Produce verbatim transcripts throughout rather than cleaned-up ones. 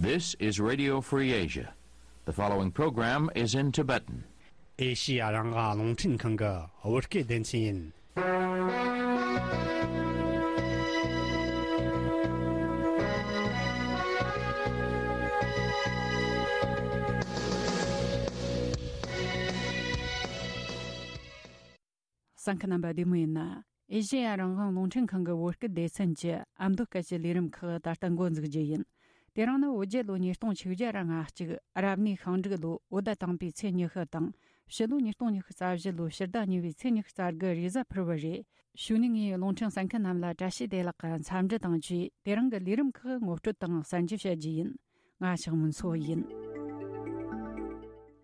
This is Radio Free Asia. The following program is in Tibetan. ཨེ་ཤི་ཡ་རང་དབང་རླུང་འཕྲིན་ཁང་གི་བོད་སྐད་སྡེ་ཚན་ཡིན། གསན་མཁན་རྣམ་པ་བདེ་མོ་ཡིན་ན། ཨེ་ཤེ་ཡ་རང་དབང་རླུང་འཕྲིན་ཁང་གི་བོད་སྐད་སྡེ་ཚན་གྱི་ཨ་མདོ་སྐད་ཀྱི་ལས་རིམ་ཁག་ད་ལྟ་འགོ་འཛུགས་རྒྱུ་ཡིན། དེ་རིང་ནི་བོད་རྒྱལ་ལོ་ཉིས་སྟོང་ཆིག་བརྒྱ་ར་ལྔ་གཅིག་རབ་གནས་ཤིང་འབྲུག་ལོ་བོད་ཟླ་དང་པོའི་ཚེས་ཉི་ཤུ་དང་། ཕྱི་ལོ་ཉིས་སྟོང་ཉི་ཤུ་རྩ་བཞི་ལོའི་ཕྱི་ཟླ་གཉིས་པའི་ཚེས་ཉི་ཤུ་རྩ་དགུ་རེས་གཟའ་ཕུར་བུ་རེད། གཞུག་ནས་ངས་རླུང་འཕྲིན་གསན་མཁན་རྣམས་ལ་བཀྲ་ཤིས་བདེ་ལེགས་ཀྱི་འཚམས་འདྲི་དང་བཅས་དེ་རིང་གི་ལས་རིམ་ཁག་ངོ་སྤྲོད་དང་གསན་རྒྱུ་བྱ་རྒྱུ་ཡིན། ང་ཞག་མུན་སོ་ཡིན།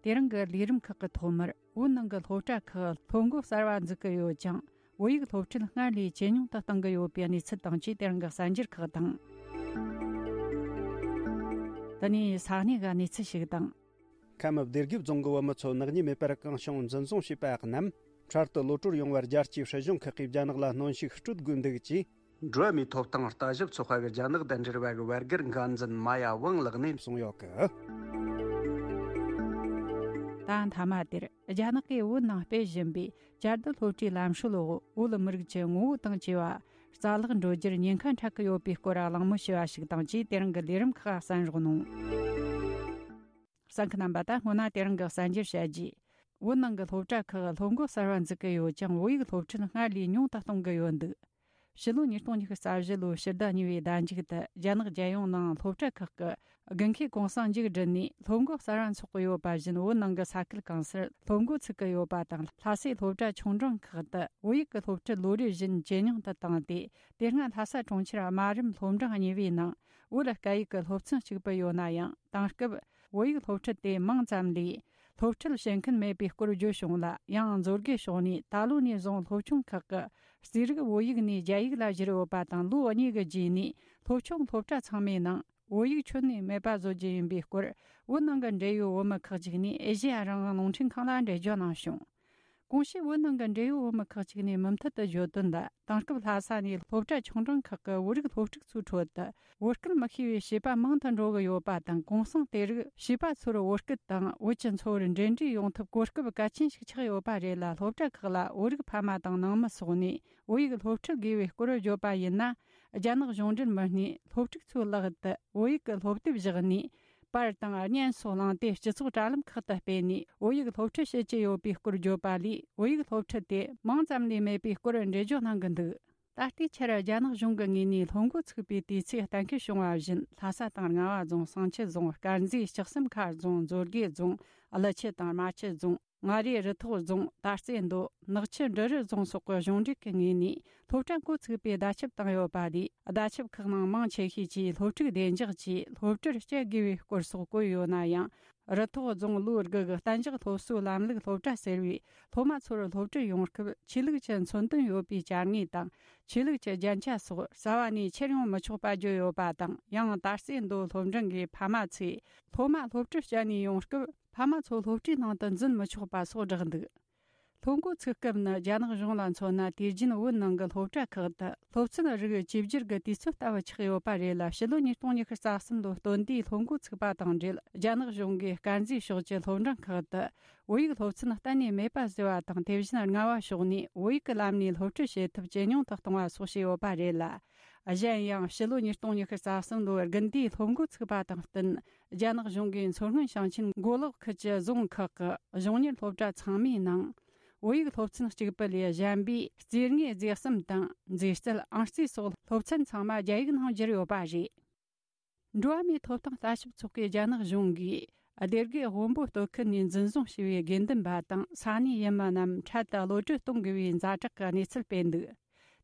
དེ་རིང་གི་ལས་རིམ་ཁག་གི་ཐོག་མར་བོད་ནང་གི་སློབ་གྲྭ་ཁག་སློབ་འགོ་གསར་བ་འཛུགས་ཀྱི་ཡོད་ཅིང་། བོད་ཡིག་སློབ་ཁྲིད་སྔར་ལས་ཇེ་ཉུང་དུ་གཏོང་གི་ཡོད་པའི་གནས་ཚུལ་དང་བཅས་དེ་རིང་གི་གསར་འགྱུར་ཁག་དང་། དེ་ནས་ས་གནས་ཀྱི་གནས་ཚུལ་ཞིག་དང་། ཁམས་སྡེ་དགེ་རྫོང་གི་བུ་མོ་ཚོ་ནག་ཉེས་མེད་པར་གང་བྱུང་འཛིན་བཟུང་བྱས་པ་རྣམས་འཕྲལ་དུ་གློད་གྲོལ་ཡོང་བར་རྒྱལ་སྤྱིའི་སྲིད་གཞུང་ཁག་གིས་རྒྱ་ནག་ལ་གནོན་ཤུགས་སྤྲོད་དགོས་འདུག་ཅེས། འགྲོ་བ་མིའི་ཐོབ་ཐང་ལྟ་ཞིབ་ཚོགས་པ་གི་རྒྱ་ནག་དང་འབྲེལ་བ་གི་བར་བརྒལ་འགན་འཛིན་མ་ཡ་ཝང་ལགས་ནས་གསུངས་ཡོད་གི། ད་མཐའ་མ་དེར་རྒྱ་ནག་གིས་བོད་ནང་སྤེལ་བཞིན་པའི་བཅའ་སྡོད་སློབ་གྲྭའི་ལམ་སྲོལ་འོག་བོད་མི་རིགས་ཀྱི་ངོ་བོ་དང་བཅས་པ་རྩ་བརླག་འགྲོ་རྒྱུར་ཉེན་ཁ་འཕྲད་ཀྱི་ཡོད་པའི་སྐོར་གླེང་མོལ་བྱས་པ་ཞིག་དང་བཅས་དེ་རིང་གི་ལས་རིམ་ཁག་གསན་རོགས་གནང་། གསན་མཁན་རྣམ་པ། ད་སྔོན་ན་དེ་རིང་གི་གསར་འགྱུར་བཤད་རྗེས། བོད་ནང་གི་སློབ་གྲྭ་ཁག་སློབ་འགོ་གསར་བ་འཛུགས་ཀྱི་ཡོད་ཅིང་བོད་ཡིག་སློབ་ཁྲིད་སྔར་ལས་ཉུང་དུ་གཏོང་གི་ཡོད་འདུག་ཕྱི་ལོ་ཉིས་སྟོང་ཉི་ཤུ་རྩ་བཞི་ལོའི་ཕྱི་ཟླ་གཉིས་པའི་ཟླ་མཇུག་ཏུ་རྒྱ་ནག་རྒྱལ་ཡོངས་ནང་སློབ་གྲྭ་ཁག་གི་དགུན་ཁའི་གུང་སེང་མཇུག་བསྒྲིལ་ནས་སློབ་འགོ་གསར་བ་འཚོགས་ཀྱི་ཡོད་པ་བཞིན་བོད་ནང་གི་ས་ཁུལ་གང་སར་སློབ་འགོ་ཚུགས་ཀྱི་ཡོད་པ་དང་། ལྷ་སའི་སློབ་གྲྭ་ཆུང་འབྲིང་ཁག་ཏུ་བོད་ཡིག་གི་སློབ་ཁྲིད་ལོ་རེ་བཞིན་ཇེ་ཉུང་དུ་བཏང་སྟེ། དེ་སྔ་ལྷ་ས་གྲོང་ཁྱེར་སྨན་རམས་སློབ་འབྲིང་གཉིས་པའི་ནང་བོད་སྐད་ཡིག་གི་སློབ་ཚན་གཅིག་པུ་ཡོད་ན་ཡང་། དེང་སྐབས་བོད་ཡིག་སློབ་ཁྲིད་དེ་མིང་ཙམ་ལས་སློབ་ཁྲིད་བྱེད་མཁན་མེད་པའི་སྐོར་བརྗོད་བྱུང་ལ། ཡང་མཛོད་དགེ་ཕྱོགས་ནས་ད་ལོ་ནས་བཟུང་སློབ་ཆུང་ཁག་གི་རྩིས་རིག་བོད་ཡིག་ནས་རྒྱ་ཡིག་ལ་བསྒྱུར་ཡོད་པ་དང་། ལོ་གཉིས་ཀྱི་རྗེས་ནས་སློབ་ཆུང་སློབ་གྲྭ་ཚང་མའི་ནང་བོད་ཡིག་ཁྱོན་ནས་མེད་པ་བཟོ་རྒྱུ་ཡིན་པའི་སྐོར། བོད་ནང་གི་འབྲེལ་ཡོད་བོད་མི་ཁག་ཅིག་ནས་ཨེ་ཤེ་ཡ་རང་དབང་རླུང་འཕྲིན་ཁང་ལ་འགྲེལ་བརྗོད་གནང་བྱུང་། གོང་ཞུས་བོད་ནང་གི་འབྲེལ་ཡོད་བོད་མི་ཁག་ཅིག་ནས་མུ་མཐུད་དུ་བརྗོད་དོན་ལ། དེང་སྐབས་ལྷ་ས་ནས་སློབ་གྲྭ་ཆུང་འབྲིང་ཁག་གི་བོད་རིགས་སློབ་ཕྲུག་ཚོའི་ཁྲོད་དུ་བོད་སྐད་མི་ཤེས་པའི་བྱིས་པ་མང་དུ་འགྲོ་གི་ཡོད་པ་དང་། གུང་སེང་དེ་རིགས་བྱིས་པ་ཚོར་བོད་སྐད་དང་བོད་ཀྱི་འཚོ་བར་འབྲེལ་འདྲིས་ཡོང་ཐབས་གོ་སྐབས་གལ་ཆེན་ཞིག་ཆགས་ཡོད་པ་རེད་ལ། སློབ་གྲྭ་ཁག་ལ་བོད་རིགས་ཕ་མ་དང་ནང་མི་སོགས་ནས་བོད་ཡིག་སློབ་ཁྲིད་དགོས་པའི་སྐོར་བརྗོད་པ་ཡིན་ན། རྒྱ་ནག་གཞུང་འབྲེལ་མི་སྣས་སློབ་ཕྲུག་ཚོའི་ལག་ཏུ་བོད་ཡིག་གི་སློབ་དེབ་བཞག་ནས། པར་དང་བརྙན་སོགས་བླངས་ཏེ་སྤྱི་ཚོགས་དྲ་ལམ་ཁག་ཏུ་སྤེལ་ནས་བོད་ཡིག་སློབ་ཁྲིད་བྱེད་ཀྱི་ཡོད་པའི་སྐོར་བརྗོད་པ་ལས། བོད་ཡིག་སློབ་ཁྲིད་དེ་མིང་ཙམ་ལས་མེད་པའི་སྐོར་འགྲེལ་བརྗོད་གནང་གི་འདུག་ད་ལྟའི་ཆར་རྒྱ་ནག་གཞུང་གི་ངོས་ནས་སློབ་འགོ་ཚུགས་པའི་དུས་ཚིགས་གཏན་འཁེལ་བྱུང་བ་བཞིན། ལྷ་ས་དང་རྔ་བ་རྫོང་། བསང་ཆུ་རྫོང་། དཀར་མཛེས། ལྕགས་ཟམ་མཁར་རྫོང་། མཛོད་དགེ་རྫོང་། ཀླུ་ཆུ་དང་རྨ་ཆུ་རྫོང་། མངའ་རིས་རུ་ཐོག་རྫོང་། དར་རྩེ་མདོ། ནག་ཆུ་འབྲི་རུ་རྫོང་སོགས་ཀྱི་གཞུང་འབྲེལ་གྱི་ངོས་ནས་སློབ་གྲྭ་འགོ་ཚུགས་པའི་བརྡ་ཁྱབ་བཏང་ཡོད་པ་ལས། བརྡ་ཁྱབ་ཁག་ནང་མང་ཆེ་ཤོས་ཀྱིས་སློབ་ཕྲུག་བདེ་འཇགས་ཀྱིས་སློབ་གྲྭར་བསྐྱལ་དགོས་པའི་སྐོར་སོགས་བཀོད་ཡོད་ན་ཡང་། རུ་ཐོག་རྫོང་ལོ་དགུ་གི་གཏན་འཇགས་སློབ་གསོའི་ལམ་ལུགས་སློབ་གྲྭ་ཟེར་བས། སློབ་མ་ཚོར་སློབ་ཁྲིད་ཡོང་སྐབས་ཆོས་ལུགས་ཀྱི་མཚོན་དོན་ཡོད་པའི་བྱ་དངོས་དང་། ཆོས་ལུགས་ཀྱི་རྒྱན་ཆ་སོགས་རྩ་བ་ནས་ཁྱེར་ཡོང་མི་ཆོག་པ་བརྗོད་ཡོད་པ་དང་། ཡང་དར་རྩེ་མདོ་སློབ་འབྲིང་གི་ཕ་མ་ཚོས་སློབ་མ་སློབ་གྲྭར་བསྐྱལ་ནས་ཡོང་སྐབས། ཕ་མ་ཚོ་སློབ་གྲྭའི་ནང་དུ་འཛུལ་མི་ཆོག་པ་སོགས་བསྒྲགས་འདུག་སློབ་འགོ་ཚུགས་སྐབས་ནི་རྒྱ་ནག་གཞུང་ལ་མཚོན་ན། དུས་རྒྱུན་བོད་ནང་གི་སློབ་གྲྭ་ཁག་ཏུ་སློབ་ཚན་རིགས་བཅོས་བསྒྱུར་གྱི་དུས་ཚོད་ལྟ་བུ་ཆགས་ཡོད་པ་རེད་ལ། ཕྱི་ལོ་ཉིས་སྟོང་ཉི་ཤུ་རྩ་གསུམ་ལོའི་སྟོན་ཟླའི་སློབ་འགོ་ཚུགས་པ་དང་འབྲེལ། རྒྱ་ནག་གཞུང་གིས་དཀར་མཛེས་ཕྱོགས་ཀྱི་སློབ་འབྲིང་ཁག་ཏུ་བོད་ཡིག་སློབ་ཚན་གཏན་ནས་མེད་པ་བཟོས་པ་དང་། དེ་བཞིན་རྔ་བ་ཕྱོགས་ནས་བོད་ཡིག་གི་ལམ་ནས་སློབ་ཁྲིད་བྱེད་ཐབས་ཇེ་ཉུང་དུ་གཏོང་བ་སོགས་བྱས་ཡོད་པ་རེད་ལ། གཞན་ཡང་ཕྱི་ལོ་ཉིས་སྟོང་ཉི་ཤུ་རྩ་གསུམ་ལོའི་དགུན་ཟླའི་སློབ་འགོ་ཚུགས་པ་དང་བསྟུན། རྒྱ་ནག་གཞུང་གིས་མཚོ་སྔོན་ཞིང་ཆེན་མགོ་ལོག་ཁུལ་གྱི་རྫོང་ཁག་གི་གཞུང་གཉེར་སློབ་གྲྭ་ཚང་མའི་ནང་། བོད་ཡིག་སློབ་ཚན་གཅིག་པུ་ལས་གཞན་པའི་རྩིས་དངོས་རྫས་གསུམ་དང་། མཛེས་རྩལ། ཨང་རྩིས་སོགས་སློབ་ཚན་ཚང་མ་རྒྱ་ཡིག་ནང་བསྒྱུར་ཡོད་པ་རེད། འགྲོ་བ་མིའི་ཐོབ་ཐང་ལྟ་ཞིབ་ཚོགས་པས་རྒྱ་ནག་གཞུང་གིས་སྡེ་དགེ་དབོན་པོ་སྟོད་ཁུལ་ནས་འཛིན་བཟུང་བྱས་པའི་དགེ་འདུན་པ་དང་ས་གནས་ཡུལ་མི་རྣམས་འཕྲལ་དུ་གློད་གྲོལ་གཏོང་དགོས་པའི་ཛ་དྲག་གི་གནས་ཚུལ་སྤེལ་འདུག་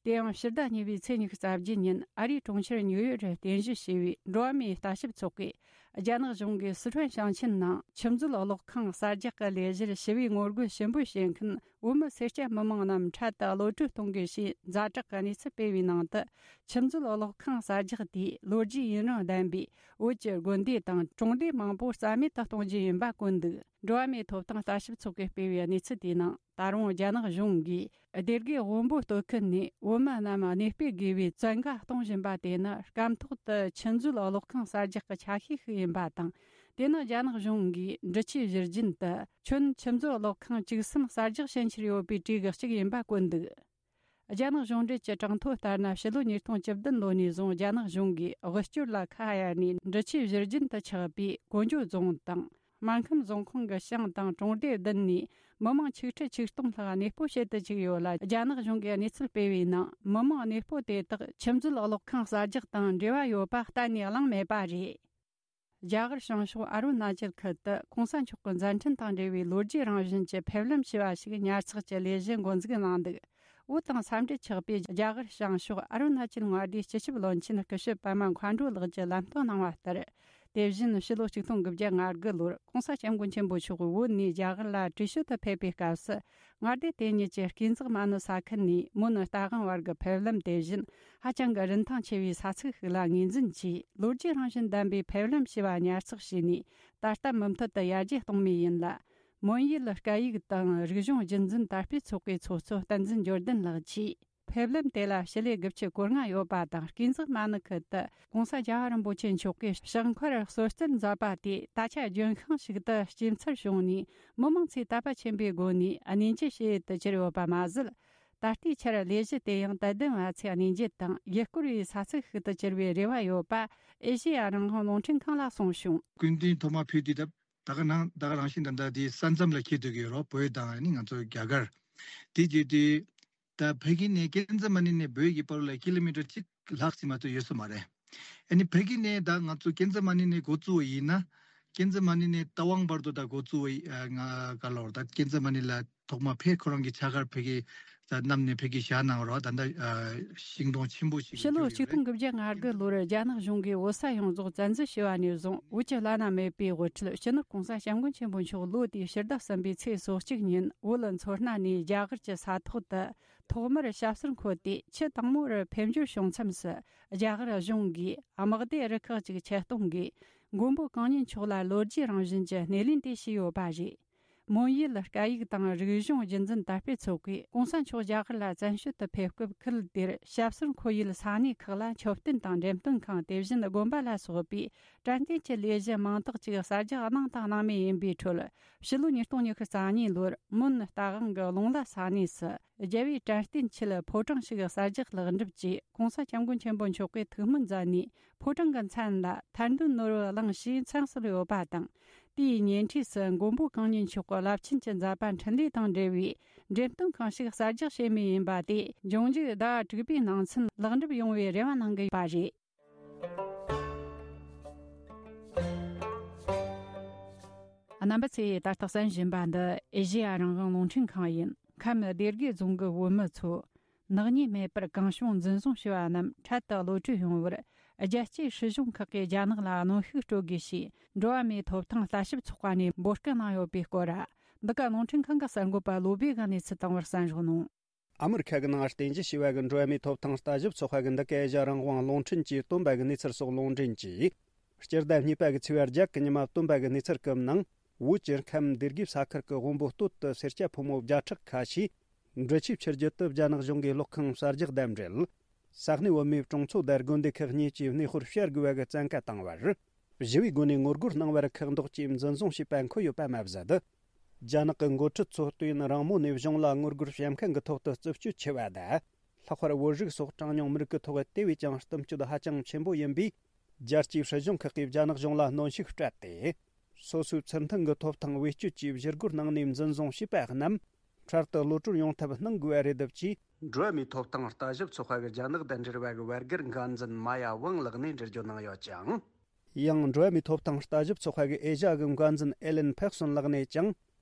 དེ་ཡང་ཕྱི་ཟླ་གཉིས་པའི་ཚེས་ཉི་ཤུ་རྩ་བརྒྱད་ཉིན་ཨ་རིའི་གྲོང་ཁྱེར་ཉིའུ་ཡོག་རུ་རྟེན་གཞི་བྱས་པའི་འགྲོ་བ་མིའི་ལྟ་ཞིབ་ཚོགས་པས། རྒྱ་ནག་གཞུང་གིས་སི་ཁྲོན་ཞིང་ཆེན་ནང་ཆུ་མཛོད་གློག་ཁང་གསར་རྒྱག་གི་ལས་གཞིར་ཞི་བའི་ངོ་རྒོལ་ཞུ་འབོད་བྱེད་མཁན་བོད་མི་སེར་སྐྱ་མི་མང་རྣམས་འཕྲལ་དུ་གློད་གྲོལ་གཏོང་དགོས་ཞེས་ཛ་དྲག་གི་གནས་ཚུལ་སྤེལ་བའི་ནང་དུ། ཆུ་མཛོད་གློག་ཁང་གསར་རྒྱག་དེས་ལོ་རྒྱུས་ཡུན་རིང་ལྡན་པའི་བོད་ཀྱི་དགོན་སྡེ་དང་གྲོང་སྡེ་མང་པོ་རྩ་མེད་དུ་གཏོང་རྒྱུ་ཡིན་པ་བཀོད་འདུག་འགྲོ་བ་མིའི་ཐོབ་ཐང་ལྟ་ཞིབ་ཚོགས་པས་སྤེལ་བའི་གནས་ཚུལ་དེའི་ནང་། ད་རུང་རྒྱ་ནག་གཞུང་གིས་སྡེ་དགེ་དབོན་པོ་སྟོད་ཁུལ་ནས་བོད་མི་རྣམས་གནས་སྤོས་དགོས་པའི་བཙན་བཀའ་གཏོང་བཞིན་པ་དེ་ནི་སྐབས་ཐོག་ཏུ་ཆུ་མཛོད་གློག་ཁང་གསར་རྒྱག་གི་ཆ་ཤས་ཤིག་ཡིན། ཡིན་པ་དང་། དེ་ནི་རྒྱ་ནག་གཞུང་གིས་འབྲི་ཆུའི་བཞུར་རྒྱུན་དུ་ཁྱོན་ཆུ་མཛོད་གློག་ཁང་བཅུ་གསུམ་གསར་རྒྱག་བྱེད་འཆར་ཡོད་པའི་གྲས་ཀྱི་གཅིག་ཡིན་པ་བཀོད་འདུག་རྒྱ་ནག་གཞུང་འབྲེལ་གྱི་གྲངས་ཐོ་ལྟར་ན། ཕྱི་ལོ་ཉིས་སྟོང་བཅུ་བདུན་ལོ་ནས་བཟུང་རྒྱ་ནག་གཞུང་གིས་དབུལ་སྐྱོར་ལ་ཁ་གཡར་ནས་འབྲི་ཆུའི་བཞུར་རྒྱུན་དུ་ཆགས་པའི་ཀོང་ཇོ་རྫོང་དང་། སྨར་ཁམས་རྫོང་ཁོངས་ཀྱི་ཞང་དང་གྲོང་སྡེ་བདུན་ནས་མི་མང་ཆིག་ཁྲི་ཆིག་སྟོང་ལྷག་གནས་སྤོ་བྱེད་དུ་བཅུག་ཡོད་ལ། རྒྱ་ནག་གཞུང་གིས་གནས་ཚུལ་སྤེལ་བའི་ནང་། མི་མང་གནས་སྤོ་དེ་དག་ཆུ་མཛོད་གློག་ཁང་གསར་རྒྱག་དང་འབྲེལ་བ་ཡོད་པ་གཏན་ནས་གླེང་མེད་པ་རེད། རྒྱ་གར་བྱང་ཕྱོགས་ཨ་རུ་ན་ཅལ་ཁུལ་དུ་གོང་ས་མཆོག་གི་མཛད་འཕྲིན་དང་འབྲེལ་བའི་ལོ་རྒྱུས་རང་བཞིན་གྱི་ཕེབས་ལམ་ཞེས་པ་ཞིག་ཉར་ཚགས་ཀྱི་ལས་གཞི་འགོ་འཛུགས་གནང་འདུག་བོད་དང་ས་འབྲེལ་ཆགས་པའི་རྒྱ་གར་བྱང་ཕྱོགས་ཨ་རུ་ན་ཅལ་མངའ་སྡེའི་སྤྱི་ཁྱབ་བློན་ཆེན་སྐུ་ཞབས་པད་མ་མཁའ་འགྲོ་ལགས་ཀྱིས་ལམ་སྟོན་གནང་བ་ལྟར། དེ་བཞིན་ཕྱི་ལོ་ཆིག་སྟོང་དགུ་བརྒྱ་ང་དགུ་ལོར་གོང་ས་སྐྱབས་མགོན་ཆེན་པོ་མཆོག་བོད་ནས་རྒྱ་གར་ལ་བྲོས་བྱོལ་དུ་ཕེབས་པའི་སྐབས་སུ། མངའ་སྡེ་དེ་ཉིད་ཀྱི་སྐས་འཛེག་མ་ནུ་ས་ཁུལ་ནས་མོན་རྟ་དབང་བར་གྱི་ཕེབས་ལམ་དེ་བཞིན་ཧ་ཅང་གི་རིན་ཐང་ཆེ་བའི་ས་ཚིགས་ཤིག་ལ་ངོས་འཛིན་གྱིས། ལོ་རྒྱུས་རང་བཞིན་ལྡན་པའི་ཕེབས་ལམ་ཞེས་པ་ཉར་ཚགས་བྱས་ནས། ད་ལྟ་མུ་མཐུད་དུ་ཡར་རྒྱས་གཏོང་མུས་ཡིན་ལ། མོན་ཡུལ་སྐད་ཡིག་དང་རིག་གཞུང་རྒྱུན་འཛིན་དར་སྤེལ་ཚོགས་པའི་ཚོགས་གཙོ་བསྟན་འཛིན་འབྱོར་ལྡན་ལགས་ཀྱིས། ཕེབས་ལམ་དེ་ལ་ཞི་ལུ་དགུ་བཅུ་གོ་ལྔ་ཡོད་པ་དང་། སྐས་འཛེག་མ་ནུ་ཁུལ་དུ་༸གོང་ས་༸རྒྱལ་བ་རིན་པོ་ཆེ་མཆོག་གིས་ཕྱག་འཁོར་གསོལ་སྩལ་མཛད་པ་དེ་ད་ཆ་ལྗོན་ཤིང་ཞིག་ཏུ་སྐྱེ་འཚར་བྱུང་ནས། མི་མང་ཚོས་དད་པ་ཆེན་པོའི་སྒོ་ནས་གནས་མཇལ་བྱེད་དུ་གྱུར་ཡོད་པ་མ་ཟད། ད་ལྟའི་ཆར་ལས་གཞི་དེ་ཡང་དད་ལྡན་བ་ཚོས་གནས་མཇལ་དང་ཡུལ་སྐོར་བའི་ས་ཚིགས་ཤིག་ཏུ་གྱུར་བའི་རེ་བ་ཡོད་པ་ཨེ་ཤེ་ཡ་རང་དབང་རླུང་འཕྲིན་ཁང་ལ་གསུངས་བྱུང་། སྐུ་མདུན་ཐོག་མར་ཕེབས་དུས་ད་ད་ག་ནང་ད་ག་རང་བཞིན་ད་ལྟ་དེ་ས་མཚམས་ལ་འཁེལ་སྡོད་ཀྱི་ཡོད་རེད། བོད་དང་ཨ་ནི་ང་ཚོ་རྒྱ་གར། དེ་བརྒྱུད་དེ་ད་ཕ་གི་ནས་ཀན་ཛ་མ་ནི་ནས་བོད་ཀྱི་བར་ལ་ཀི་ལོ་མི་ཊར་གཅིག་ལྷག་ཙམ་མ་གཏོགས་ཡོད་ས་མ་རེད། ཨ་ནི་ཕ་གི་ནས་ད་ང་ཚོ་ཀན་ཛ་མ་ནི་ནས་འགོ་བཙུགས་པ་ཡིན་ན། ཀན་ཛ་མ་ནི་ནས་རྟ་དབང་བར་དུ་ད་འགོ་བཙུགས་པ་ཡི་ཨ་ང་ག་ལོར་ད་ཀན་ཛ་མ་ནི་ལ་ཐོག་མ་ཕེབས་ཁོ་རང་གི་ཕྱག་འཁར་ཕ་གི་ད་བསྣམས་ནས་ཕ་གི་བཞག་གནང་རོགས། ད་ལྟ་ཨ་ཤིང་སྡོང་ཆེན་པོ་ཞིག་ཕྱི་ལོ་གྱུར་ཡོད་རེད། ཆིག་སྟོང་དགུ་བརྒྱ་ང་དགུ་ལོར་རྒྱ་ནག་གཞུང་གིས་བོད་ས་ཡོངས་རྫོགས་བཙན་འཛུལ་བྱས་པ་ནས་བཟུང་། བོད་ཀྱི་བླ་ན་མེད་པའི་དབུ་ཁྲིད་སྤྱི་ནོར་༸གོང་ས་༸སྐྱབས་མགོན་ཆེན་པོ་མཆོག་ལོ་དེའི་ཕྱི་ཟླ་གསུམ་པའི་ཚེས་སོ་གཅིག་ཉིན་བོད་མཚོ་སྣ་ནས་རྒྱ་གར་གྱི་ས་ཐོག་ཏུ་ཐོག་མར་ཞབས་སོར་འཁོད་དེ། ཆུ་དྭངས་མོ་རུ་ཕེབས་འབྱོར་བྱུང་མཚམས་སུ། རྒྱ་གར་གཞུང་གིས་དམག་སྡེ་རུ་ཁག་ཅིག་ཆེད་གཏོང་གིས་མགོན་པོ་གང་ཉིད་མཆོག་ལ་ལོ་རྒྱུས་རང་བཞིན་གྱི་སྣེ་ལེན་དེ་བྱས་ཡོད་པ་རེད། མོན་ཡུལ་སྐད་ཡིག་དང་རིག་གཞུང་རྒྱུན་འཛིན་དར་སྤེལ་ཚོགས་པས་༸གོང་ས་མཆོག་རྒྱ་གར་ལ་བཙན་བྱོལ་དུ་ཕེབས་སྐབས། ཁུལ་དེར་ཞབས་སོར་འཁོད་ཡུལ་ས་གནས་ཁག་ལ་མཆོད་རྟེན་དང་འགྲེམས་སྟོན་ཁང་། དེ་བཞིན་དགོན་པ་ལ་སོགས་པའི་དྲན་རྟེན་གྱི་ལས་གཞི་མང་དག་ཅིག་གསར་རྒྱག་གནང་དང་གནང་མུས་ཡིན་པའི་ཁྲོད། ཕྱི་ལོ་ཉིས་སྟོང་ཉི་ཤུ་རྩ་གཉིས་ལོར་མོན་རྟ་དབང་གི་ལུང་བླ་ས་གནས་སུ་རྒྱལ་བའི་དྲན་རྟེན་ཆེད་ཕོ་བྲང་ཞིག་གསར་རྒྱག་ལེགས་འགྲུབ་ཀྱིས། ༸གོང་ས་༸སྐྱབས་མགོན་ཆེན་པོ་མཆོག་གིས་ཐུགས་སྨོན་མཛད་ནས། ཕོ་བྲང་གི་མཚན་ལ་ཐར་འདོད་ནོར་བུ་གླིང་ཞེས་མཚན་གསོལ་ཡོད་པ་དང་། དེའི་ཉེ་འཁྲིས་སུ་མགོན་པོ་གང་ཉིད་མཆོག་གི་རླབས་ཆེན་གྱི་མཛད་པ་འཕྲིན་ལས་དང་འབྲེལ་བའི་འགྲེམས་སྟོན་ཁང་ཞིག་གསར་རྒྱག་བྱེད་མུས་ཡིན་པ་དེ། འབྱུང་འགྱུར་ཟླ་བ་དྲུག་པའི་ནང་ཚུན་ལེགས་འགྲུབ་ཡོང་བའི་རེ་བ་གནང་གི་ཡོད་པ་རེད། རྣམ་པ་ཚོས་ད་ལྟ་གསན་བཞིན་པ་འདི་ཨེ་ཤེ་ཡ་རང་དབང་རླུང་འཕྲིན་ཁང་ཡིན། ཁམས་སྡེ་དགེ་རྫོང་གི་བོད་མི་ཚོ་ནག་ཉེས་མེད་པར་གང་བྱུང་འཛིན་བཟུང་བྱས་པ་རྣམས་འཕྲལ་དུ་གློད་གྲོལ་ཡོང་བར། རྒྱལ་གཅེས་སྲིད་གཞུང་ཁག་གིས་རྒྱ་ནག་ལ་གནོན་ཤུགས་སྤྲོད་དགོས་ཞེས། འགྲོ་བ་མིའི་ཐོབ་ཐང་ལྟ་ཞིབ་ཚོགས་པ་ནས་འབོད་སྐུལ་གནང་ཡོད་པའི་སྐོར། འདི་ག་རླུང་འཕྲིན་ཁང་གི་གསར་འགོད་པ་བློ་བྷེ་གིས་གནས་ཚུལ་བཏང་བར་གསན་རོགས་གནང་། ཨ་མི་རི་ཁ་གི་ནང་རྟེན་གཞི་བྱས་པ་གི་འགྲོ་བ་མིའི་ཐོབ་ཐང་ལྟ་ཞིབ་ཚོགས་པ་གི་འདི་ག་ཨེ་ཤ་ཡ་རང་དབང་རླུང་འཕྲིན་གྱིས་བཏོན་པ་གི་གནས་ཚུལ་སོགས་ལུང་འདྲེན་གྱིས། སྤྱི་ཟླ་གཉིས་པ་གི་ཚེས་པ་བརྒྱད་གི་ཉི་མ་བཏོན་པ་གི་གནས་ཚུལ་སྐབས་ནང་། བོད་ཀྱི་ཁམས་སྡེ་དགེ་ས་ཁུལ་གྱི་དབོན་པོ་སྟོད་དུ་སེར་སྐྱ་ཕོ་མོ་བརྒྱ་ཕྲག་ཁ་ཤས། འབྲི་ཆུའི་ཆུ་རྒྱུད་དུ་རྒྱ་ནག་གཞུང་གིས་གློག་ཁང་གསར་རྒྱག་དང་འབྲེལ། ས་གནས་བོད་མིའི་གྲོང་ཚོ་དང་དགོན་སྡེ་ཁག་གཉིས་ཀྱི་གནས་སྤོར་བྱ་དགོས་པ་གི་བཙན་བཀའ་བཏང་བར། ཞི་བའི་སྒོ་ནས་ངོ་རྒོལ་གནང་བར་ཁག་འདོགས་ཀྱིས་འཛིན་བཟུང་བྱས་པ་འཁོད་ཡོད་པ་མ་ཟད། རྒྱ་ནག་གི་འགོ་ཁྲིད་ཚོ་ལྟོས་ཡུན་རིང་མོ་ནས་གཞུང་ལ་ངོ་རྒོལ་བྱེད་མཁན་གྱི་ཐོག་ཏུ་རྩུབ་སྤྱོད་ཆེ་བ་དང་། ལྷག་པར་བོད་རིགས་སོགས་གྲངས་ཉུང་མི་རིགས་ཀྱི་ཐོག་དེ་བས་ཀྱང་གཏུབ་སྤྱོད་ཧ་ཅང་ཆེན་པོ་ཡིན་པས། རྒྱལ་སྤྱིའི་སྲིད་གཞུང་ཁག་གིས་རྒྱ་ནག་གཞུང་ལ་གནོན་ཤུགས་སྤྲད་དེ། སོ་སོའི་ཚུལ་མཐུན་གྱི་ཐོབ་ཐང་བེད་སྤྱོད་ཀྱིས་བཞུ་རྒོལ་གནང་ནས་འཛིན་བཟུང་བྱས་པ་རྣམས་འཕྲལ་དུ་གློད་གྲོལ་ཡོང་ཐབས་གནང་དགོས་པ་རེད་འདུག་ཅེས། འགྲོ་བ་མིའི་ཐོབ་ཐང་ལྟ་ཞིབ་ཚོགས་པ་གི་རྒྱ་ནག་དང་འབྲེལ་བ་གི་བར་བརྒལ་འགན་འཛིན་མ་ཡ་ཝང་ལགས་ནས་འགྲེལ་བརྗོད་གནང་ཡོད་ཅིང་། ཡང་འགྲོ་བ་མིའི་ཐོབ་ཐང་ལྟ་ཞིབ་ཚོགས་པ་གི་ཨེ་ཤ་ཡ་གི་འགན་འཛིན་ཨེ་ལན་ཕེག་སོན་ལགས་ནས་ཀྱང་།